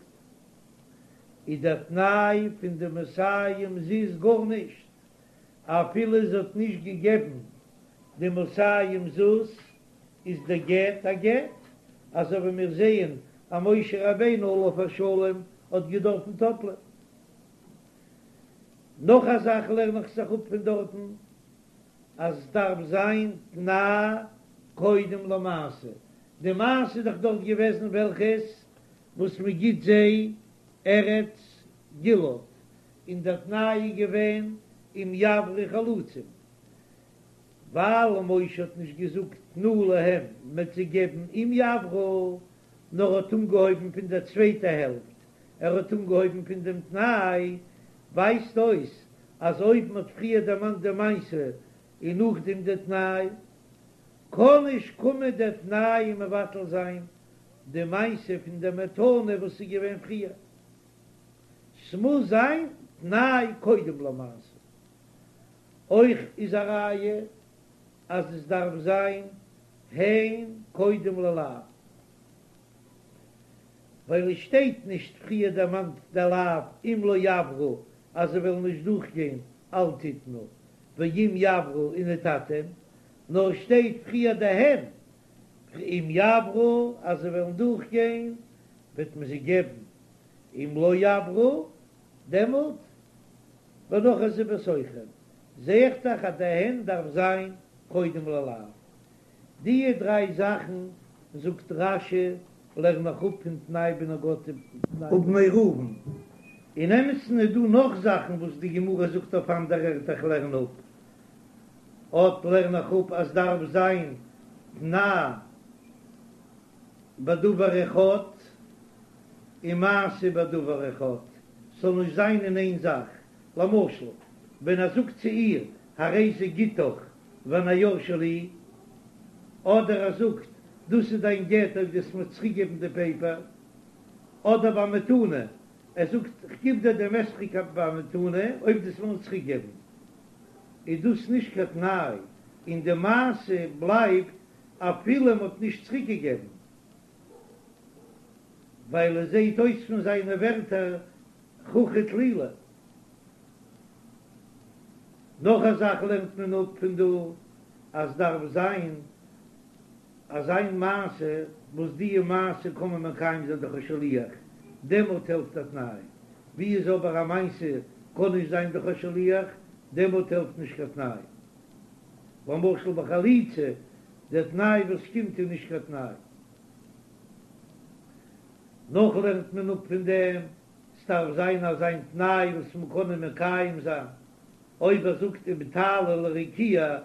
איז דער תנאי פון די מאתים זוז גארנישט, אפילו זי האט נישט געגעבן די מאתים זוז, איז דער גט א גט, אזוי ווי מיר זעען אז משה רבינו עליו השלום האט געדארפן טאפלען. נאך א זאך לערן איך זיך אפ פון דארטן, אז עס דארף זיין תנאי קודם למעשה, די מעשה איז דאך דארט געוועזן וועלכעס וואס מען גיט זיי ארץ גלעד, און דער תנאי איז געווען אם יעברו חלוצים, ווייל משה האט נישט געזאגט תנו להם מ'וועט זיי געבן אם יעברו, נאר האט אנגעהויבן פון דער צווייטע העלפט, ער האט אנגעהויבן פון דעם תנאי, ווייזט אויס אז אויב מ'האט פריער דערמאנט די מעשה און נאכדעם די תנאי, קען נישט קומען דער תנאי און מבטל זיין די מעשה פון די מתנה וואס איז געווען פריער. ס'מוז זיין תנאי קודם למעשה. אויך איז א ראיה אז עס דארף זיין הן קודם ללאו, ווייל עס שטייט נישט פריער דערמאנט די לאו אם לא יעברו אז זיי וועלן נישט דורכגיין אל תתנו ואם יעברו ונתתם, נאר עס שטייט פריער די הן אם יעברו אז זיי וועלן דורכגיין וועט מען זיי געבן, אם לא יעברו דעמאלט ונחתו בתוכם, זע איך דאך אז די הן דארף זיין קודם ללאו. דיע דריי זאכן זאגט רש"י לערן איך אפ פון תנאי בני גד ובני ראובן. אין אמת'ן איז דא נאך זאכן וואס די גמרא זאגט אויף אנדערע ערטער איך לערן אפ. אט לערן איך אפ אז דארף זיין תנאי בדבר אחד און מעשה בדבר אחד, ס'זאל נישט זיין אין איין זאך, למשל ווען ער זאגט צו איר הרי זה גיטך והנייר שלי, אדער ער זאגט דאס איז דיין גט אויב דו וועסט מיר צוריקגעבן די פעיפער, אדער ביי מתנה, ער זאגט כ'גיב דיר דעם אתרוג במתנה אויב דו וועסט מיר צוריקגעבן, איז דאס נישט קיין תנאי, און די מעשה בלייבט אפילו מ'האט נישט צוריקגעגעבן. ווייל עס זעהט אויס פון זיינע ווערטער חוכא טלולא. נאך א זאך לערנט מען אפ פון דא אז דארף זיין אזיין מעשה וואס די מעשה קען מען מקיים זיין דורך א שליח, דעמאלט העלפט א תנאי, ווי איז אבער א מעשה קען נישט זיין דורך א שליח, דעמאלט העלפט נישט קיין תנאי. למשל ביי חליצה, דער תנאי וואס קומט איז נישט קיין תנאי. נאך לערנט מען אפ פון דעם, ס'דארף זיין אזיין תנאי וואס מ'קען אים מקיים זיין, אויב ער זאגט אם תעלי לרקיע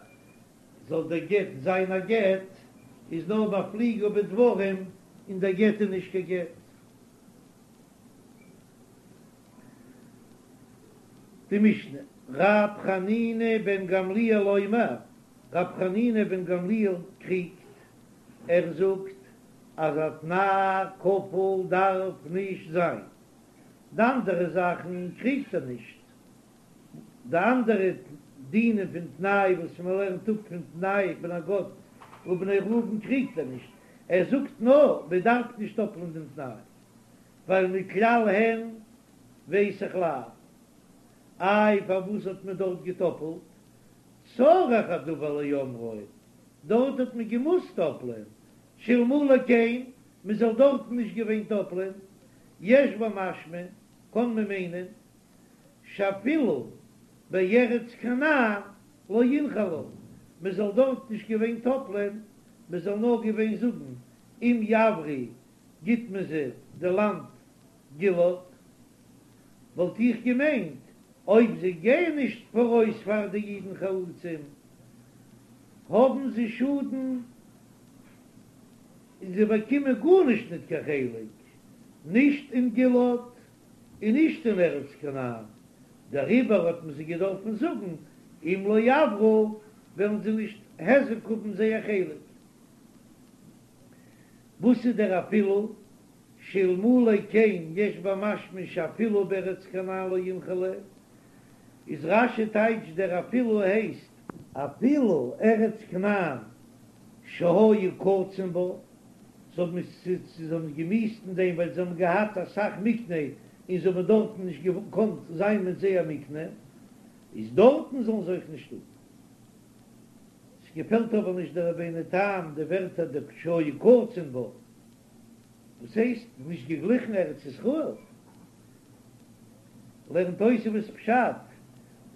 זאל דער גט זיין א גט, איז נאר מפליגה בדברים און דער גט איז נישט קיין גט. די משנה, ר' חנינא בן גמליאל אומר, ר' חנינא בן גמליאל קריגט, ער זאגט אז א תנאי כפול דארף נישט זיין, די אנדערע זאכן קריגט ער נישט, די אנדערע דינים פון תנאי וואס מען לערנט אפ פון תנאי בני גד ובני ראובן קריגט ער נישט, ער זאגט נאר מען דארף נישט טאפלען דעם תנאי, ווייל מכלל הן ווייס איך לאו. איי פארוואס האט מען דארט געטאפלט? צריך הדבר לאומרו, דארט האט מען געמוזט טאפלען, שאלמלא כן, מען זאל דארטן נישט געווען טאפלען, יש במשמע, קען מען מיינען, שאפילו בארץ כנען לא ינחלו, מען זאל דארט נישט געווען טאפלען, מען זאל נאר געווען זאגן אם יעברו גיט מען זיי די לאנד גלעד, וואלט איך געמיינט אויב זיי גייען נישט פאראויס פאר די אידן חלוצים האבן זיי שאדן און זיי באקומען גארנישט ניט קיין חלק, נישט אין גלעד און נישט אין ארץ כנען, דעריבער האט מען זיי געדארפן זאגן אם לא יעברו וועלן זיי נישט היזק האבן זייער חלק. וואס איז דער אפילו? שאלמלא כן יש במשמע שאפילו בארץ כנען לא ינחלו, איז רש"י טייטש דער אפילו הייסט, אפילו ארץ כנען שהיו קצין בה, זיי האבן עס זיי האבן געמיאוסט אין דעם ווייל זיי האבן געהאט אסאך מקנה און זיי האבן דארטן נישט געקאנט זיין מיט זייער מקנה, איז דארטן זאלן זיי אויך נישט האבן. ס'געפעלט אבער נישט דער רבינו תם די ווערטער די שהיו קצין בה. וואס הייסט נישט געגליכן ארץ ישראל? לערנט תוספות פשט,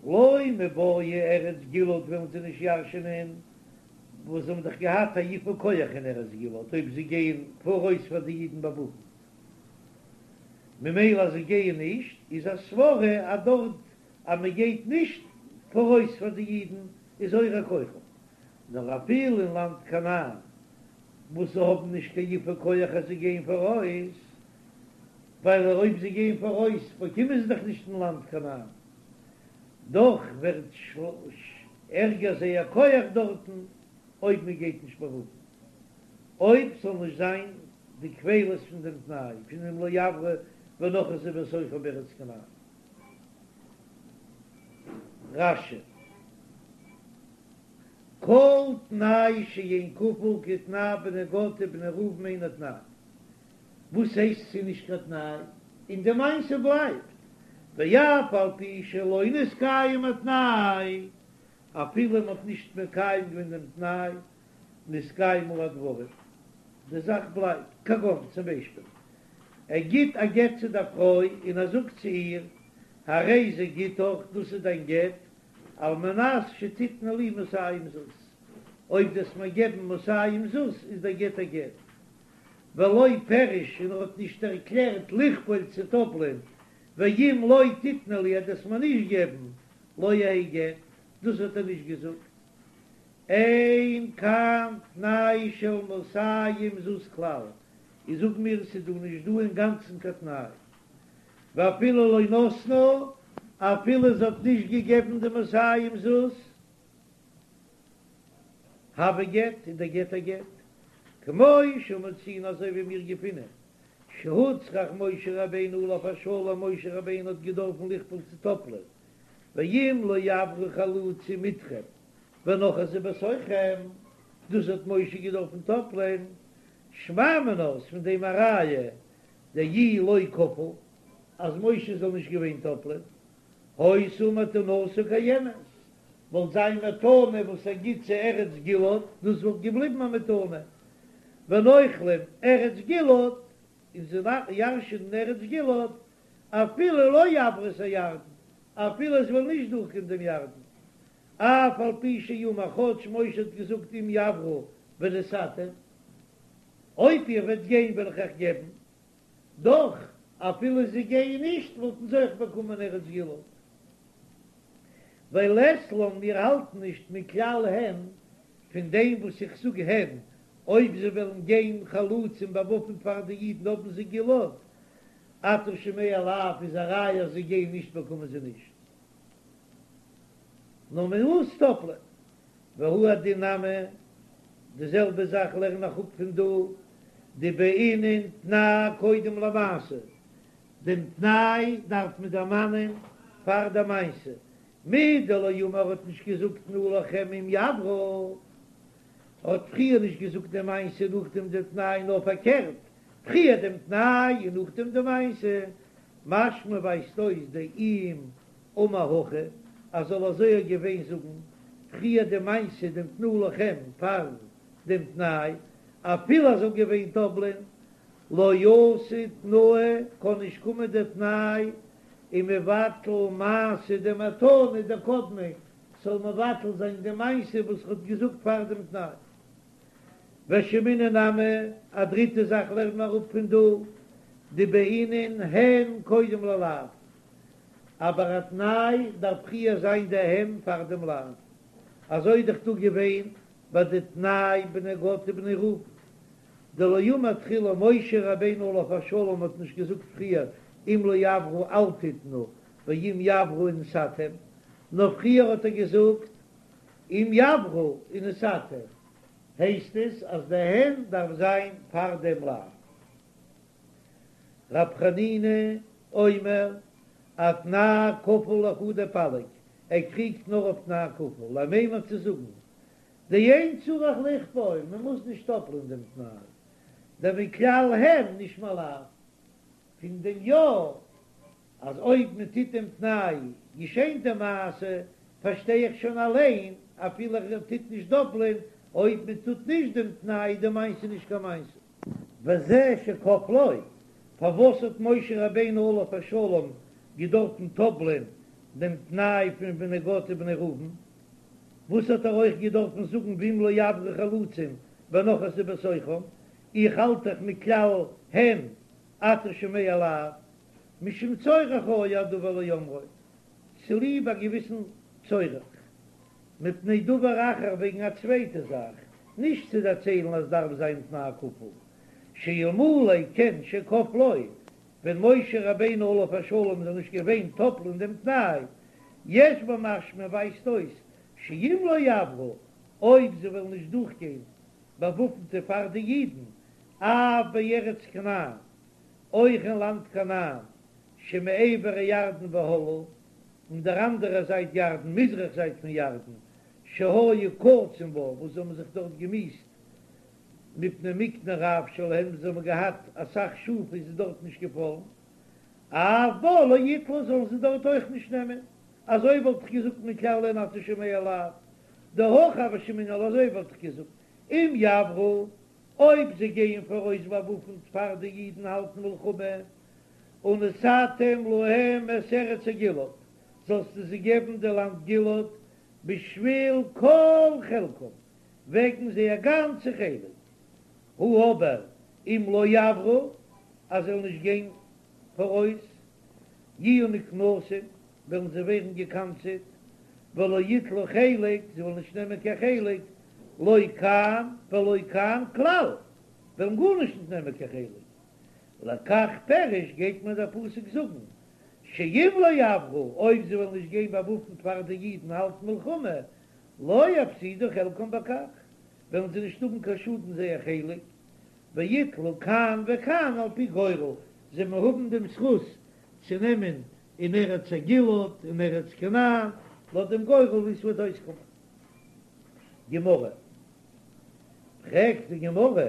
לא מיבעיא ארץ גלעד וועלן זיי נישט ירש'ענען, וואס זיי האבן דאך געהאט א יפוי כח אין ארץ גלעד אויב זיי גייען פאראויס פאר די אידן באוואפנט, ממילא אז זיי גייען נישט איז א סברא אז דארט אז מען גייט נישט פאראויס פאר די אידן איז הורע כוחם, נאר אפילו אין לאנד כנען וואס זיי האבן נישט קיין יפוי כח אז זיי גייען פאראויס, ווייל אויב זיי גייען פאראויס באקומען זיי דאך נישט אין לאנד כנען, דאך ווערט ערגער זייער כח דארטן אויב מען גייט נישט באוואפנט, אויב ס'זאל נישט זיין די כפילות פון דעם תנאי פון אם לא יעברו ונחתו בתוכם בארץ כנען. רש"י. כל תנאי שאין כפול כתנאי בני גד ובני ראובן אינו תנאי. וואס הייסט ס'איז נישט קיין תנאי? און די מעשה בלייבט, ואף על פי שלא נתקיים התנאי, אפילו מ'האט נישט מקיים געווען דעם תנאי, נתקיימו הדברים, די זאך בלייבט, כגון צום ביישפיל, ער גיט א גט צו דער פרוי און ער זאגט צו איר, הרי זה גיטך, דאס איז דיין גט, על מנת שתתני לי מאתים זוז, אויב דו וועסט מיר געבן מאתים זוז איז דער גט א גט. ולא פירש און ער האט נישט ערקלערט לכפול צו טאפלען, ואם לא תתני לי אז דו וועסט מיר נישט געבן לא יהא גט, דאס האט ער נישט געזאגט. אין כאן תנאי של מאתים זוז כלל, איז זאג מיר ס'איז דא נישט דא אינגאנצן קיין תנאי. ואפילו לא נתנה, אפילו זי האט נישט געגעבן די מאתים זוז, הוי גט, איז דער גט א גט, כמו שמצינו אזוי ווי מיר געפינען, שהוצרך משה רבינו עליו השלום, משה רבינו האט געדארפן לכפול צו טאפלען, ואם לא יעברו חלוצים אתכם ונחתו בתוכם, דאס האט משה געדארפן טאפלען, שמע מינה, איז פון דעם א ראיה. דאי לא כפל, אז משה זאל נישט געווען טאפלען, היתה מתנתו קיימת, וואלט זיין מתנה וואס ער גיט צו ארץ גלעד, דאס וואלט געבליבן א מתנה, ונוחלים ארץ גלעד, און זיי ירש'ענען ארץ גלעד, אפילו לא יעברו את הירדן, אפילו זיי וועלן נישט דורכגיין דעם ירדן, אף על פי שאמר כאטש משה האט געזאגט אם יעברו ונתתם, אויב איר וועט גיין וועל איך אייך געבן, דאך אפילו זיי גייען נישט וואלטן זיי אויך באקומען ארץ גלעד. ווייל לית לן מיר האלטן נישט מכלל הן פון דעם וואס איך זאג הן אויב זיי וועלן גיין חלוצים באוואפנט פאר די אידן האבן זיי גלעד אתה שומע לאו איז א ראיה אז זיי גייען נישט באקומען זיי נישט נאר מען מוז טאפלען והוא הדין נמי די זעלבע זאך לערן איך אפ פון דא דבעינן תנאי קודם למעשה דעם תנאי דארף מען דערמאנען פאר די מעשה, מדלא אמר האט נישט געזאגט תנו לכם אם יעברו, ער האט פריער נישט געזאגט די מעשה נאכדעם דעם תנאי נאר פארקערט, פריער דעם תנאי און נאכדעם די מעשה, משמע ווייזט אויס דאם אמר הכי אז זאל אזוי געווען זאגן פריער די מעשה דעם תנו לכם פאר דעם תנאי, אפילו ער זאל געווען טאפלען לא אתי תנאי קען נישט קומען דער תנאי ומבטל מעשה דמתנה דקדמיה, ס'זאל מבטל זיין די מעשה וואס ר'האט געזאגט פאר דעם תנאי. ושמעינן נמי, א דריטע זאך לערנט מען אראפ פון דא, דבעינן הן קודם ללאו, אבער א תנאי דארף פריער זיין די הן פאר דעם לאו, אזוי איז דאך דא געווען ביי די תנאי בני גד ובני ראובן, דלא אמר תחילה משה רבינו עליו השלום האט נישט געזאגט פריער אם לא יעברו אל תתנו ואם יעברו ונתתם, נאר פריער האט ער געזאגט אם יעברו ונתתם, הייסט עס אז די הן דארף זיין פאר דעם לאו. רב חנינא אומר אתנאי כפול לחודיה פליג, ער קריגט נאר אויף תנאי כפול, למימר צו זאגן דאין צריך לכפול, מען מוז נישט טאפלען דעם תנאי, דמכלל הן נשמע לאו, פון דעם יא אז אויב מען טוט דעם תנאי געשענט די מעשה, פארשטיי איך שוין אליין אפילו ער טוט נישט דאפלען, אויב מען טוט נישט דעם תנאי איז די מעשה נישט קיין מעשה. וזה שכפלו, פארוואס האט משה רבינו עליו השלום געדארפן טאפלען דעם תנאי פון בני גד ובני ראובן? וואס האט ער אויך געדארפן זאגן ואם לא יעברו חלוצים ונחתו בתוכם, איך האלט דאך מכלל הן אתה שומע לאו, משום צורך היה הדבר לאומרו, צוליב א געוויסן צורך, מפני דבר אחר וועגן א צווייטע זאך, נישט צו דערציילן אז דארף זיין תנאי כפול, שאלמלא כן שכפלו, ווען משה רבינו עליו השלום זאל נישט געווען טאפלען דעם תנאי, יש במשמע ווייזט אויס שאם לא יעברו, אויב זיי וועלן נישט דורכגיין באוואפנטע פאר די אידן, אף בארץ כנען, אויך אין לאנד כנען, שמעבר הירדן והלאה, אין דער אנדערער זייט ירדן, מזרח זייט פון ירדן, שהיו קצין בה, וואס זיי האבן זיך דארט געמיאוסט מפני מקנה רב שלהם, זיי האבן געהאט אסאך שאף איז זיי דארט נישט געפאלן, אף בה לא יטלו זאלן זיי דארט אויך נישט נעמען, אזוי וואלט איך געזאגט מכלל הן אתה שומע לאו, דהכי הוה שמעינן אזוי וואלט איך געזאגט אם יעברו, אויב זיי גייען פאראויס באוואפנט פאר די אידן האלטן מלחמה, ונתתם להם את ארץ הגלעד, זאלסטו זיי געבן די לאנד גלעד בשביל כל חלקם, וועגן זייער גאנצע חלק, הא אבער אם לא יעברו, אז זיי וועלן נישט גיין פאראויס, יהיו נקנסים, וועלן זיי ווערן געקנס'עט, ולא יטלו חלק, זיי וועלן נישט נעמען קיין חלק, לא כאן ולא כאן כלל, וועלן גארנישט נישט נעמען קיין חלק. לכך פירש גייט מיר דער פסוק זאגן, שאם לא יעברו, אויב זיי וועלן נישט גיין באוואפנט פאר די אידן האלטן מלחמה, לא יפסידו חלקם בכך, וועלן זיי נישט האבן קיין שאדן זייער חלק, ויטלו כאן וכאן על פי גורל, זיי וועלן האבן דעם זכות צו נעמען אין ארץ הגלעד און ארץ כנען, לויט דעם גורל ווי עס וועט אויסקומען. גמרא, פרעגט די גמרא,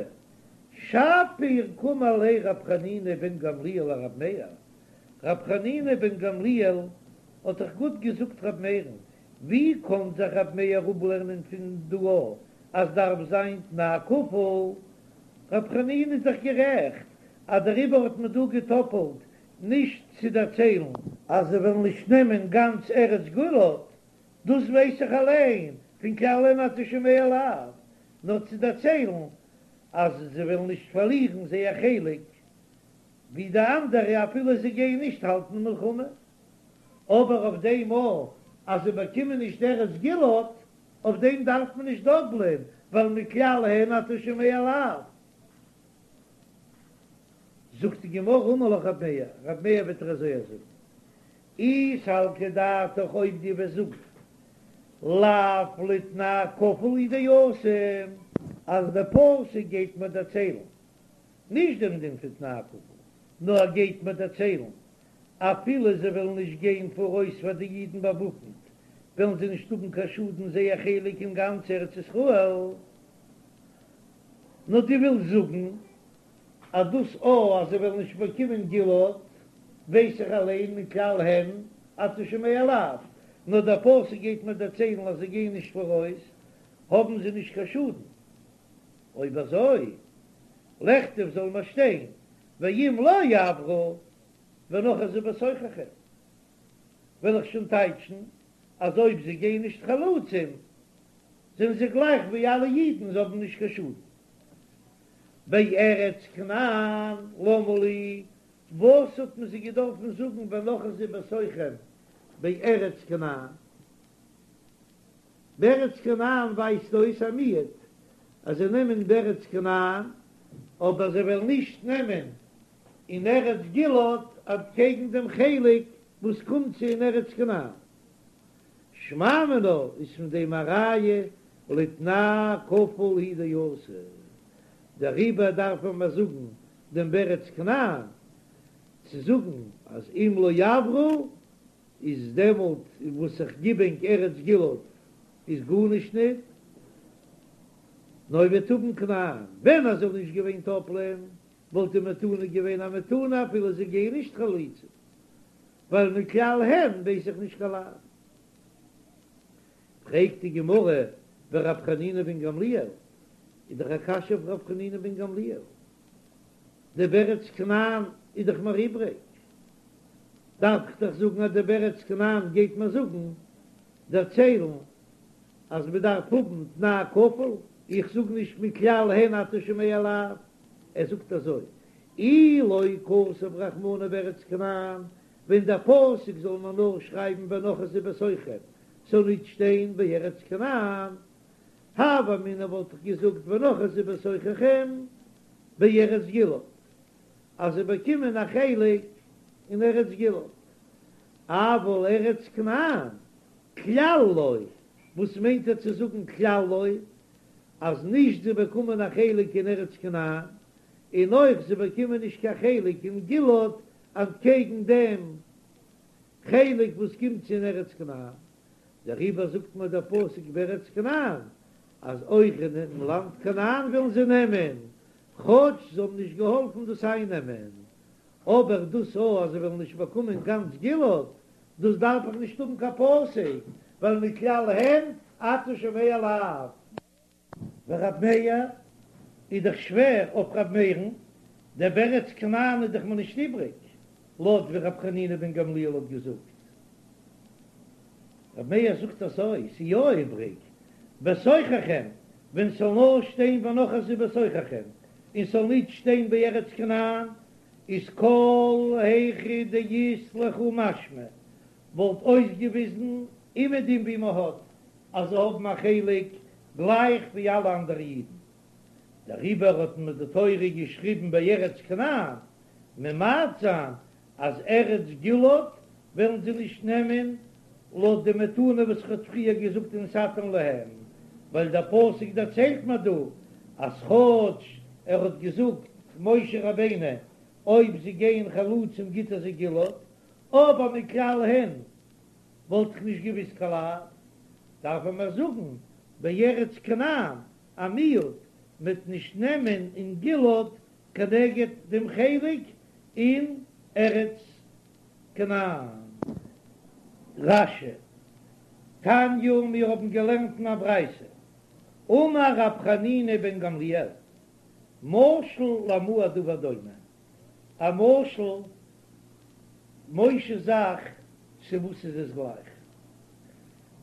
שפיר קאמר ליה רב חנינא בן גמליאל לרב מאיר, רב חנינא בן גמליאל האט דאך גוט געזאגט רב מאיר'ן, ווי קען זיך רב מאיר אפלערנען פון דא אז דארף זיין תנאי כפול? רב חנינא איז דאך גערעכט אז דעריבער האט מען דא געטאפלט נישט צו דערציילן אז זיי וועלן נישט נעמען גאנץ ארץ גלעד, דאס ווייס איך אליין פון כלל הן אתה שומע לאו, נאר צו דערציילן אז זיי וועלן נישט פארלירן זייער חלק ווי די אנדערע אפילו זיי גייען נישט האלטן מלחמה, אבער אויף דעם מאל אז זיי באקומען נישט ארץ גלעד, אויף דעם דארף מען נישט דאפלען, ווייל מכלל הן אתה שומע לאו. זאגט די גמרא אמר לך רב מאיר, רב מאיר וועט דיר אזוי זאגן, אי סלקא דעתך אויב דו וועסט זאגן לאו לתנאי כפול הוא דאתא, אז דער פסוק גייט מיר דערציילן נישט דעם דין פון תנאי כפול, נאר ער גייט מיר דערציילן אפילו זיי וועלן נישט גיין פאראויס פאר די אידן באוואפנט, וועלן זיי נישט האבן קיין שאדן זייער חלק אין גאנץ ארץ ישראל. נאר דו ווילסט זאגן אז דאס א אז זיי וועלן נישט באקומען גלעד, ווייס איך אליין מכלל הן אתה שומע לאו, נאר דער פסוק גייט מיר דערציילן אז זיי גייען נישט פאראויס, האבן זיי נישט קיין שאדן. אויב אזוי, לכתוב זאל מען שטיין ואם לא יעברו ונחזו בתוככם, וועל איך שוין טייטשן אז אויב זיי גייען נישט חלוצים זענען זיי גלייך ווי אלע אידן, זיי האבן נישט קיין שאדן. בארץ כנען למה לי, וואס האט מען זיי געדארפן זאגן ונחזו בתוככם בארץ כנען? בארץ כנען ווייזט אויס א מיעוט אז זיי נעמען בארץ כנען, אבער זיי וועלן נישט נעמען אין ארץ גלעד אנטקעגן דעם חלק וואס קומט צו אין ארץ כנען. שמע מינה איז פון דעם א ראיה לתנאי כפול הוא דאתא, דעריבער דארף מען זאגן דעם בארץ כנען צו זאגן אז אם לא יעברו איז דעמאלט וואס איך גיב ענק ארץ גלעד איז גארנישט ניט, נאר איר וועט האבן כנען, ווען עס זאל נישט געווען טאפלען וואלט די מתנה געווען א מתנה אפילו זיי גייען נישט חלוצים, ווייל מכלל הן ווייס איך נישט קיין לאו. פרעגט די גמרא ורב חנינא בן גמליאל, איז דאך א קשיא אויף רב חנינא בן גמליאל, די בארץ כנען איז דאך מיר איבריג, דארף איך דאך זאגן אז די בארץ כנען גייט מיר זאגן, דערציילן, אז מען דארף האבן תנאי כפול, איך זאג נישט מכלל הן אתה שומע לאו, ער זאגט אזוי, אי לא כתב רחמנא בארץ כנען, ווען דער פסוק זאל מען נאר שרייבן ונחזו בתוככם, ס'זאל נישט שטיין בארץ כנען, הוה אמינא וואלט איך געזאגט ונחזו בתוככם בארץ גלעד, אז זיי באקומען א חלק אין ארץ גלעד, אבל ארץ כנען כלל לא, וואס מיינט ער צו זאגן כלל לא? אז נישט זיי באקומען א חלק אין ארץ כנען, און אויך זיי באקומען נישט קיין חלק אין גלעד אנטקעגן דעם חלק וואס קומט צו אין ארץ כנען, דעריבער זאגט מיר דער פסוק בארץ כנען אז אויך אינעם לאנד כנען וועלן זיי נעמען, כאטש זיי האבן נישט געהאלפן דאס אייננעמען, אבער דאס א אז זיי וועלן נישט באקומען גאנץ גלעד, דאס דארף איך נישט האבן קיין פסוק, ווייל מכלל הן אתה שומע לאו. ורב מאיר איז דאך שווער אויף רב מאיר'ן, דער בארץ כנען איז דאך מיר נישט איבריג, לויט ווי רב חנינא בן גמליאל האט געזאגט. רב מאיר זאגט אזוי, ס'איז יא איבריג, בתוככם, ווען ס'זאל נאר שטיין ונחזו בתוככם, און ס'זאל נישט שטיין בארץ כנען, איז כל היכא דאית לכו משמע, וואלט אויסגעוויזן אומעדום ווי מ'האט אז זיי האבן א חלק גלייך ווי אלע אנדערע אידן, דעריבער האט מיר די תורה געשריבן בארץ כנען, ממעט זיין אז ארץ גלעד וועלן זיי נישט נעמען לויט די מתנה וואס איך האב פריער געזאגט ונתתם להם, ווייל דער פסוק דערציילט מיר דא אז כאטש ער האט געזאגט משה רבינו אויב זיי גייען חלוצים גיט ער זיי גלעד, אבער מכלל הן וואלט איך נישט געוויסט קיין לאו, דארף ער מיר זאגן בארץ כנען א מיעוט. מ'וועט נישט נעמען אין גלעד כנגד דעם חלק אין ארץ כנען. רש"י, תניא, מיר האבן געלערנט אין א ברייתא, אמר רב חנינא בן גמליאל, משל למה הדבר דומה, א משל, משה'ס זאך, צו וואס איז עס גלייך?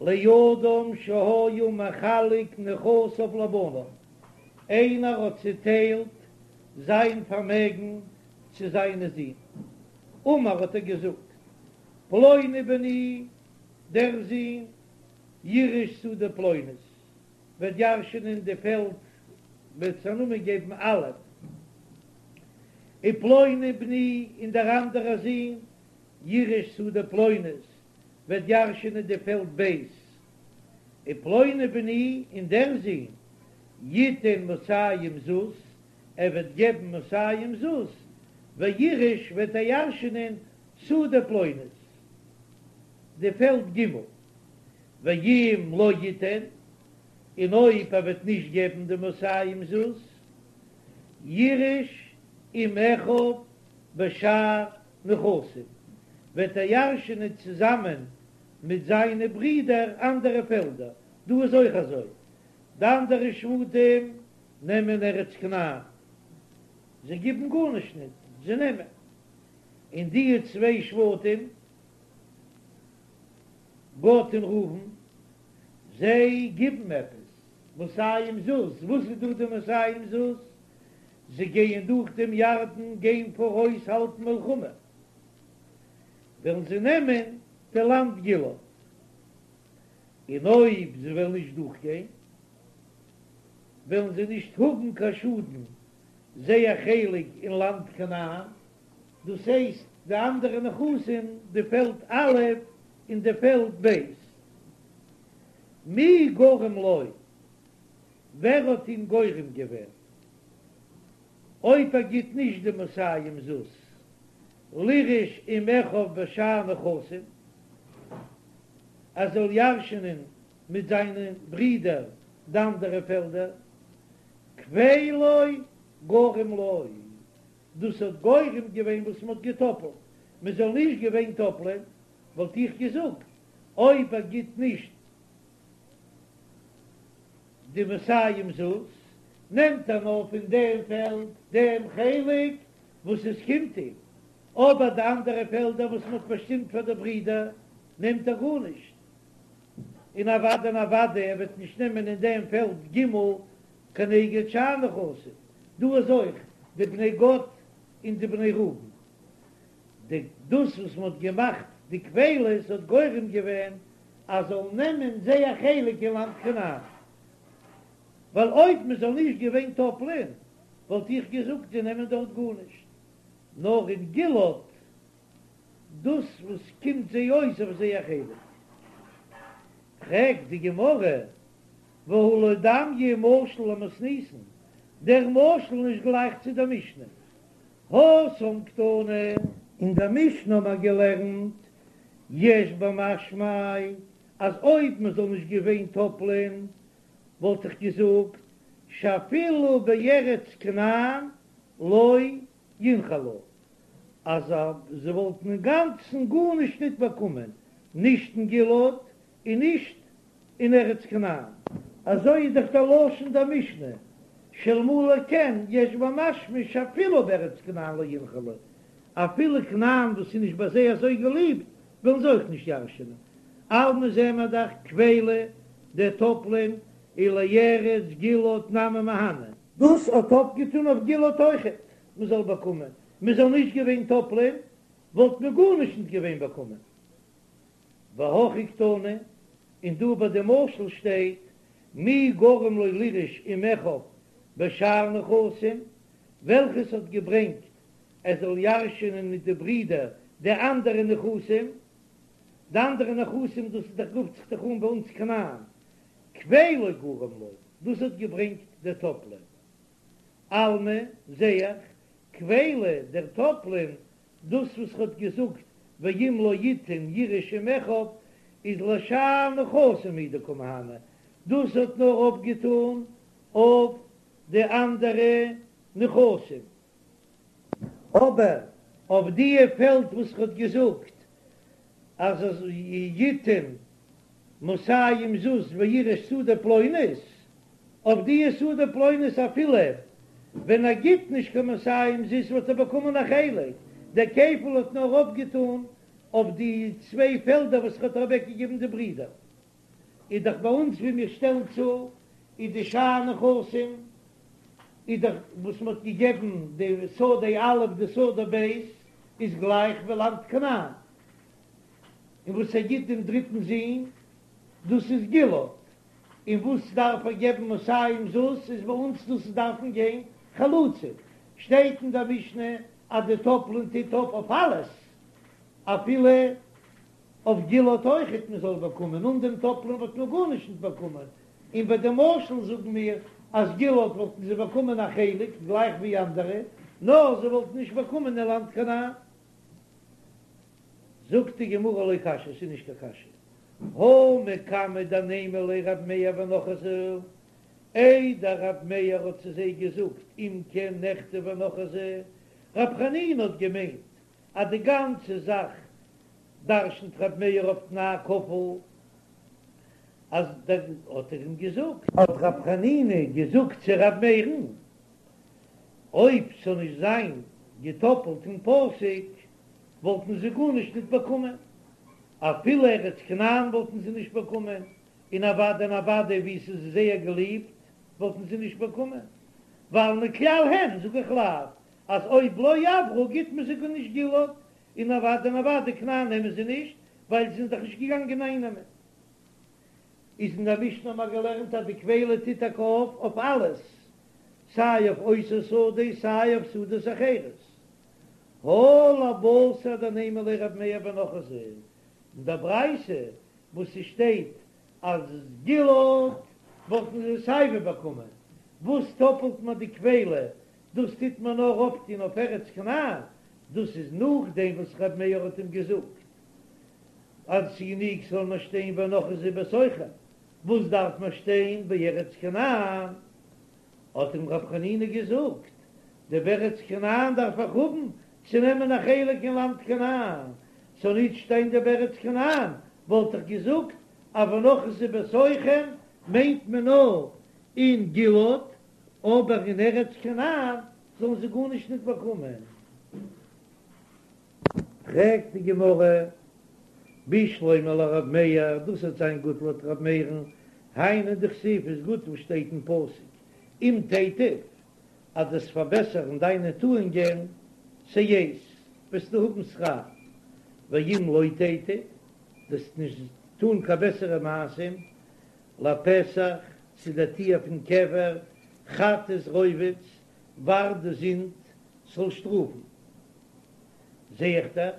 לאדם שהיה מחלק נכסיו לבניו, איינער האט צעטיילט זיין פארמעגן צו זיינע זין, אמר האט ער געזאגט, פלוני בני, דער זון, יירש שדה פלונית, וועט ירשענען די פעלד וועט עס א נאמען געבן א', ופלוני בני, און דער אנדערער זון, יירש שדה פלונית, וועט ירשענען די פעלד ב', ופלוני בני, און דער זון, יתן מאתים זוז, ער וועט געבן מאתים זוז, ויירש וועט ער ירשענען שדה פלונית, די פעלד ג', ואם לא יתן, און אויב ער וועט נישט געבן די מאתים זוז, יירש עם אחיו בשאר נכסים, וועט ער ירש'ענען צוזאמען מיט זיינע ברידער אנדערע פעלדער, דא איז אויך אזוי, די אנדערע שבטים נעמען ארץ כנען, זיי גיבן גארנישט ניט, זיי נעמען, און די צוויי שבטים, גד און ראובן, זיי גיבן עפעס, מאתים זוז, וואס איז דא די מאתים זוז? זיי גייען דורך דעם ירדן, גיין פאראויס האלטן מלחמה, וועלן זיי נעמען די לאנד גלעד, און אויב זיי וועלן נישט דורכגיין, וועלן זיי נישט האבן קיין שאדן זייער חלק אין לאנד כנען, דאס הייסט די אנדערע נכסים, די פעלד א' און די פעלד ב'. מי גרם לו? ווער האט אים גורם געווען? אויב ער גיט נישט די מאתים זוז לירש עם אחיו בשאר נכסים, ער זאל ירש'נען מיט זיינע ברידער די אנדערע פעלדער, כפילו גרם לו, דאס האט גורם געווען וואס מען האט געטאפלט, מען זאל נישט געווען טאפלען, וואלט איך געזאגט, אויב ער גיט נישט די מאתים זוז, נעמט ער נאר פון דעם פעלד דעם חלק וואס עס קומט אים, אבער די אנדערע פעלדער וואס מען האט באשטימט פאר די ברידער נעמט ער גארנישט, און אוודאי און אוודאי ער וועט נישט נעמען אין דעם פעלד ג' כנגד שאר נכסים, דא איז אויך די בני גד און די בני ראובן, די דאס וואס מען האט געמאכט די כפילות האט גורם געווען אז זאלן נעמען זייער חלק אין לאנד כנען, ווייל אויב מען זאל נישט געווען טאפלען וואלט איך געזאגט זיי נעמען דארט גארנישט, נאר אין גלעד דאס וואס קומט זיי אויס אויף זייער חלק. פרעגט די גמרא, והא לא דמיא משל למתניתין, דער משל איז נישט גלייך צו דער משנה, התם קתני. אין דער משנה האבן מיר געלערנט יש במשמע אז אויב מען זאל נישט געווען טאפלען וואלט איך געזאגט שאפילו בארץ כנען לא ינחלו אז זיי וואלטן אינגאנצן גארנישט ניט באקומען נישט אין גלעד און נישט אין ארץ כנען. אזוי איז דאך דער לשון דער משנה, שאלמלא כן יש במשמע שאפילו בארץ כנען לא ינחלו, אפילו כנען וואס איז נישט ביי זיי אזוי געליבט וועלן זיי אויך נישט ירש'נען, אלמא זעען מיר דאך כפילא דער טאפלען ולארץ גלעד נמי מהני. דאס האט אויפגעטון אויף גלעד אויכעט מען זאל באקומען, מען זאל נישט געווען טאפלען וואלט מען גארנישט נישט געווען באקומען. והכא קתני, און דא ביי די משל שטייט מי גרם לו לירש עם אחיו בשאר נכסים, וועלכעס האט געברענגט ער זאל ירש'ענען מיט די ברידער די אנדערע נכסים, די אנדערע נכסים דאס איז דאך רופט זיך דאך אן ביי אונז כנען, כפילו גרם לו, דאס האט געברענגט דער טאפלען. אלמא, זע איך, כפילא דער טאפלען דאס וואס ר'האט געזאגט ואם לא יתן יירש עם אחיו איז לשאר נכסים הוא דקא מהני, דאס האט נאר אויפגעטאן אויף. די אנדערע נכסים. אבער אויף דיע פעלד וואס ער האט געזאגט אז אז יתן מאתים זוז וירש שדה פלונית, אויף דיע שדה פלונית אפילו ווען ער גיט נישט קיין מאתים זוז וואלט ער באקומען א חלק, דער כפל האט נאר אויפגעטאן אויף די צוויי פעלדער וואס ער האט אוועקגעגעבן די ברידער. איז דאך ביי אונז ווי מיר שטעלן צו איז די שאר נכסים איז דאך וואס מען האט געגעבן די שדה א' די שדה ב' איז גלייך ווי לאנד כנען, און וואס ער גיט דעם דריטן זון דאס איז גלעד, און וואס דארף ער געבן מאתים זוז איז ביי אונז דאס דארפן גיין חלוצים, שטייט אין דער משנה אז די טאפלען טוט אויף אויף אלעס אפילו אויף גלעד אויכעט מען זאל באקומען, אן דעם טאפלען וואלט מען גארנישט נישט באקומען, און ביי די משל זאגן מיר אז גלעד וואלטן זיי באקומען א חלק גלייך ווי אנדערע, נאר זיי וואלטן נישט באקומען אין לאנד כנען. זאגט די גמרא לא קשיא, ס'איז נישט קיין קשיא, הא מקמי דנימא ליה רב מאיר ונחזו, איידער רב מאיר האט צו זיי געזאגט אם כן נכתוב ונחזו, רב חנינא האט געמיינט אז די גאנצע זאך דרשנ'ט רב מאיר אויף תנאי כפול, אז דער האט ער אים געזאגט. האט רב חנינא געזאגט צו רב מאיר'ן, אויב ס'זאל נישט זיין געטאפלט אין פסוק, וואלטן זיי גארנישט ניט באקומען, אפילו ארץ כנען וואלטן זיי נישט באקומען, און אוודאי און אוודאי ווי ס'איז זייער געליבט וואלטן זיי נישט באקומען, ווייל מכלל הן זאג איך לאו, אז אויב לא עברו גיט מען זיי גארנישט גלעד, און אוודאי און אוודאי כנען נעמען זיי נישט, ווייל זיי זענען דאך נישט געגאנגען אייננעמען. איז אין דער משנה האבן מיר געלערנט אז די כפילה טוט טאקע אויף אויף אלעס, סיי אויף אותה שדה סיי אויף שדות אחרות. הא לבתר דנימא ליה רב מאיר ונחזו, אין דער ברייתא וואס ס'שטייט אז גלעד וואלטן זיי סייווי באקומען, וואס טאפלט מען די כפילה דאס טוט מען נאר אויפטון אויף ארץ כנען, דאס איז נאכדעם וואס ר' מאיר האט אים געזאגט אז ס'גענוג ס'זאל נאר שטיין ונחזו בתוכם, וואס דארף מען שטיין בארץ כנען? האט אים ר' חנינא געזאגט, די בארץ כנען דארף איך האבן צו נעמען א חלק אין לאנד כנען, ס'זאל נישט שטיין די בארץ כנען וואלט איך געזאגט אז ונחזו בתוכם מיינט מען נאר אין גלעד, אבער אין ארץ כנען זאלן זיי גארנישט ניט באקומען. פרעגט די גמרא, בשלמא לרב מאיר, דאס וועט זיין גוט לויט רב מאיר'ן, היינו דכתיב איז גוט וואס שטייט אין פסוק, אם תיטיב, אז דו וועסט פארבעסערן דיינע טואונגען, שאת, וועסטו האבן שכר, ואם לא תיטיב, דו וועסט נישט טאן קיין בעסערע מעשים, לפתח, צו דער טיר פון קבר, חטאת רובץ, ווארט די זינד זאל שטראפן. זע איך דאך,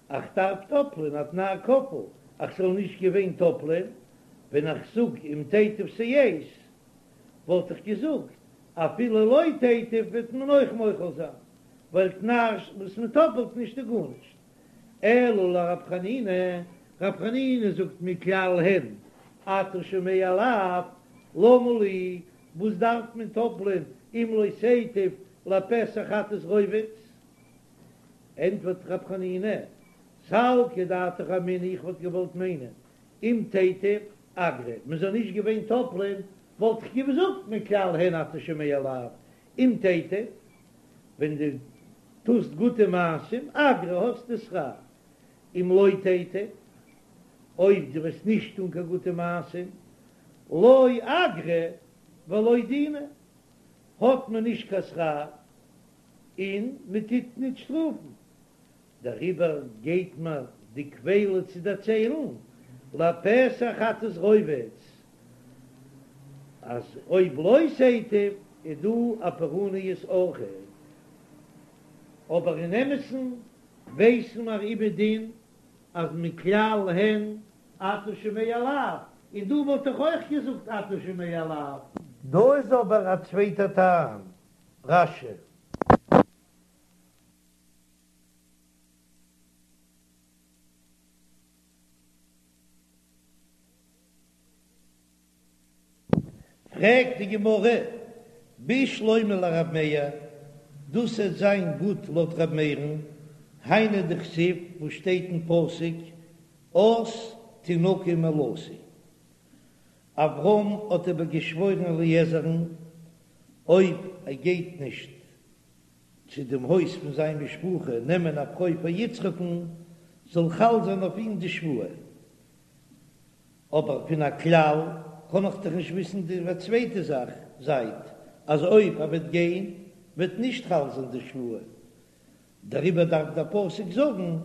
איך דארף טאפלען א תנאי כפול, אז ס'זאל נישט געווען טאפלען, ווען איך זאג אם תיטיב שאת, וואלט איך געזאגט, אפילו לא תיטיב וועט מען אויך מוחל זיין, ווייל תנאי וואס מען טאפלט נישט איז גארנישט. אלא לרב חנינא, רב חנינא זאגט מכלל הן אתה שומע לאו, למה לי, וואס דארף מען טאפלען אם לא תיטיב לפתח חטאת רובץ? ענטפערט רב חנינא, סלקא דעתך אמינא איך וואלט געוואלט מיינען אם תיטיב אגרא, מען זאל נישט געווען טאפלען וואלט איך געזאגט מכלל הן אתה שומע לאו, אם תיטיב ווען דו טוסט גוטע מעשים, אגרא האסטו שכר, אם לא תיטיב, אויב דו וועסט נישט טון קיין גוטע מעשים, לא אגרא ולא דינא, האט מען נישט קיין שכר און מען טוט נישט שטראפן. דעריבער גייט מיר די כפילה צו דערציילן לפתח חטאת רובץ, אז אויב לא תיטיב איז דא א פורעניות אויכעט, אבער אין אמת'ן ווייסן מיר איבער דין אז מכלל הן אתה שומע לאו, און דא וואלט איך אויך געזאגט אתה שומע לאו. דא איז אבער א צווייטער טעם, רש"י. פרעגט די גמרא. בשלמא לרב מאיר, דאס וועט זיין גוט לויט רב מאיר'ן, היינו דכתיב וואס שטייט אין פסוק אז תנקה מאלתי. אברהם האט איבער געשוואוירן אליעזר'ן אויב ער גייט נישט צו דעם הויז פון זיין משפחה נעמען א פרוי פאר יצחק'ן, זאל חל זיין אויף אים די שבועה. אבער פון א כלל קען איך דאך נישט וויסן די צווייטע זאך זייט אז אויב ער וועט גיין וועט נישט חל זיין די שבועה, דעריבער דארף דער פסוק זאגן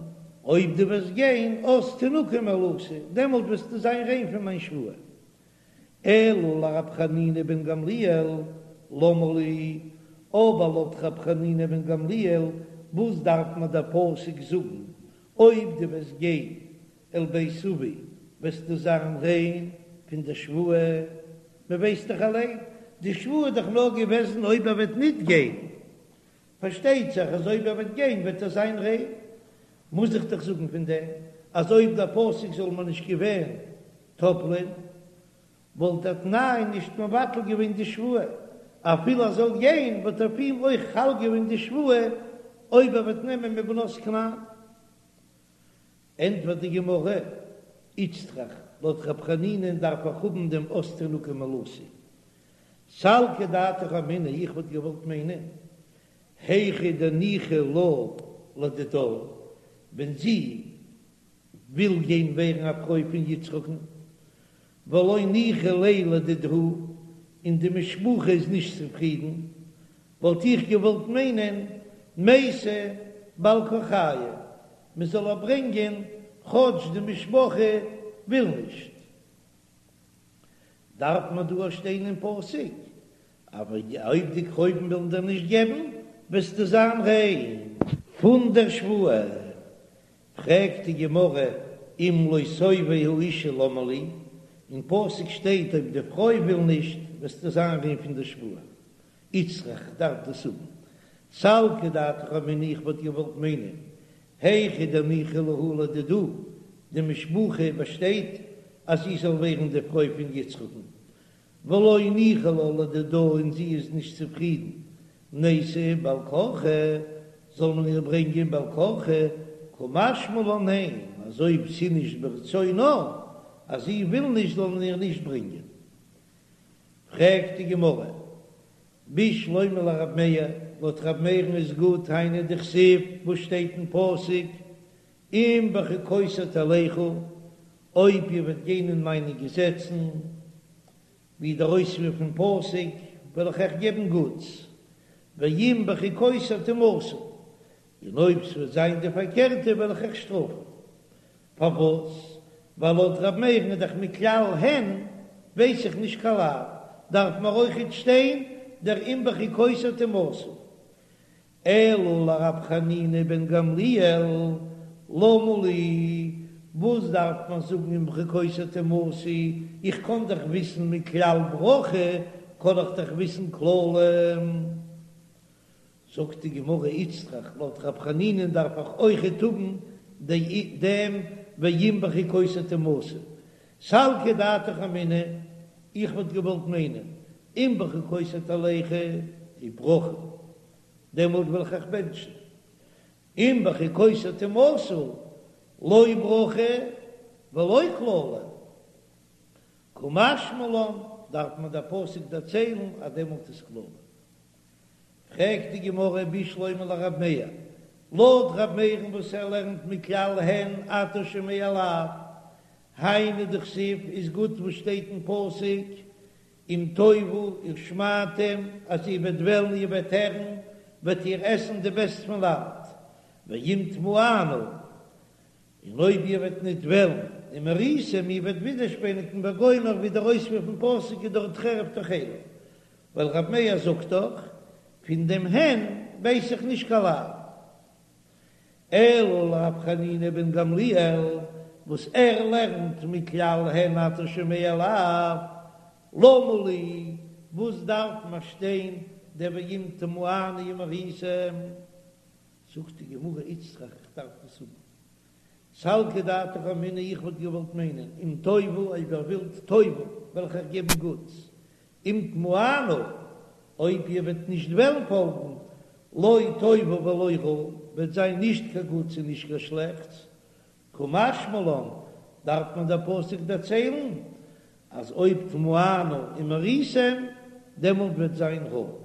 אויב דו וועסט גיין אז תנקה מאלתי, דעמאלט וועסטו זיין ריין פון מיין שבועה. אלא לרב חנינא בן גמליאל למה לי, אבער לויט רב חנינא בן גמליאל וואס דארף מיר דער פסוק זאגן אויב דו וועסט גיין אל בית אבי וועסטו זיין ריין פון די שבועה, מען ווייסט דאך אליין, די שבועה איז דאך נאר געוועזן אויב ער וועט ניט גיין, פארשטייט זיך אז אויב ער וועט גיין וועט ער זיין ריין, מוז איך דאך זאגן פון דעם אז אויב דער פסוק זאל מיר נישט געווען טאפלען, וואלט דער תנאי נישט מבטל געווען די שבועה, אפילו ער זאל גיין וואלט אויף אים אויך חל געווען די שבועה אויב ער וועט נעמען מבנות כנען. ענטפערט די גמרא, איצטריך, לויט רב חנינא'ן דארף איך האבן דעם אז תנקה מאלתי. סלקא דעתך אמינא, איך וואלט געוואלט מיינען, היכא דניחא לה לדידה, ווען זי וויל גיין ווערן א פרוי פון יצחק'ן, ולא ניחא ליה לדידהו, און די משפחה איז נישט צופרידן, וואלט איך געוואלט מיינען מייתי בעל כרחייהו, מען זאל איר ברענגען כאטש די משפחה וויל נישט. דארף מען דא שטיין אין פסוק, אבער אויב די קרובים ווילן דיר נישט געבן, וועסטו זיין ריין פון דער שבועה. פרעגט די גמרא, אם לא תאבה האשה למה לי, אין פסוק שטייט אויב די פרוי וויל נישט, וועסטו זיין ריין פון דער שבועה. איצטריך דארף דאס האבן. סלקא דעתך אמינא איך וואלט געוואלט מיינען היכא דניחא להו לדידה, די משפחה באשטייט אז זי זאל ווערן די פרוי פון יצחק'ן, ולא ניחא לה לדידה און זי איז נישט צופרידן, נייתי בעל כרחה, זאל מען איר ברענגען בעל כרחה, קא משמע לן ניין, אז אויב ס'איז נישט ברצונה, אז זי וויל נישט זאל מען איר נישט ברענגען. פרעגט די גמרא, בשלמא לרב מאיר, לויט רב מאיר'ן איז גוט היינו דכתיב וואס שטייט אין פסוק אם בחוקותי תלכו, אויב איר וועט גיין אין מיינע געזעצן, ווי דער אויספיר פון פסוק, וועל איך אייך געבן גוטס, ואם בחוקותי תמאסו, און אויב ס'וועט זיין די פארקערטע וועל איך אייך שטראפן. פארוואס? ווייל לויט ר' מאיר'ן איז דאך מכלל הן ווייס איך נישט קיין לאו, דארף מיר אויכעט שטיין דער אם בחוקותי תמאסו. אלא לרב חנינא בן גמליאל, למה לי, וואס דארף מען זאגן אם בחוקותי תמאסו, איך קען דאך וויסן מכלל ברכה, קען איך דאך וויסן קללה. זאגט די גמרא איצטריך, לויט רב חנינא'ן דארף איך אויכעט האבן דעם ואם בחוקותי תמאסו, סלקא דעתך אמינא, איך וואלט געוואלט מיינען אם בחוקותי תלכו איז ברכה, דעמאלט וועל איך אייך בענטשן, אם בחוקותי תמאסו לא ברכה ולא קללה, קא משמע לן, דארף מיר דער פסוק דערציילן אז דעמאלט איז קללה. פרעגט די גמרא בשלמא לרב מאיר, לויט רב מאיר'ן וואס ער לערנט מכלל הן אתה שומע לאו, היינו דכתיב איז גוט וואס שטייט אין פסוק אם תאבו ושמעתם אז איר וועט וועלן איר וועט הערן וועט איר עסן די בעסט פון לאנד, ואם תמאנו און אויב איר וועט ניט וועלן, ומריתם איר וועט ווידערשפעניגן וגומר ווי דער אויספיר פון פסוק איז דארט חרב תאכלו, ווייל רב מאיר זאגט דאך, פון דעם הן ווייס איך נישט קיין לאו. אלא לרב חנינא בן גמליאל, וואס ער לערנט מכלל הן אתה שומע לאו, למה לי, וואס דארף מיר שטיין דער ואם תמאנו ומריתם? זאגט די גמרא איצטריך איך דארף דאס האבן. סלקא דעתך אמינא איך וואלט געוואלט מיינען אם תאבו אויב איר ווילט תאבו וועל איך אייך געבן גוטס, אם תמאנו. אויב איר וועט נישט וועלן פאלגן, לא טובה ולא רעה, וועט זיין נישט קיין גוטס און נישט קיין שלעכטס, קא משמע לן, דארף מען דער פסוק דערציילן אז אויב תמאנו ומריתם, דעמאלט וועט זיין רע.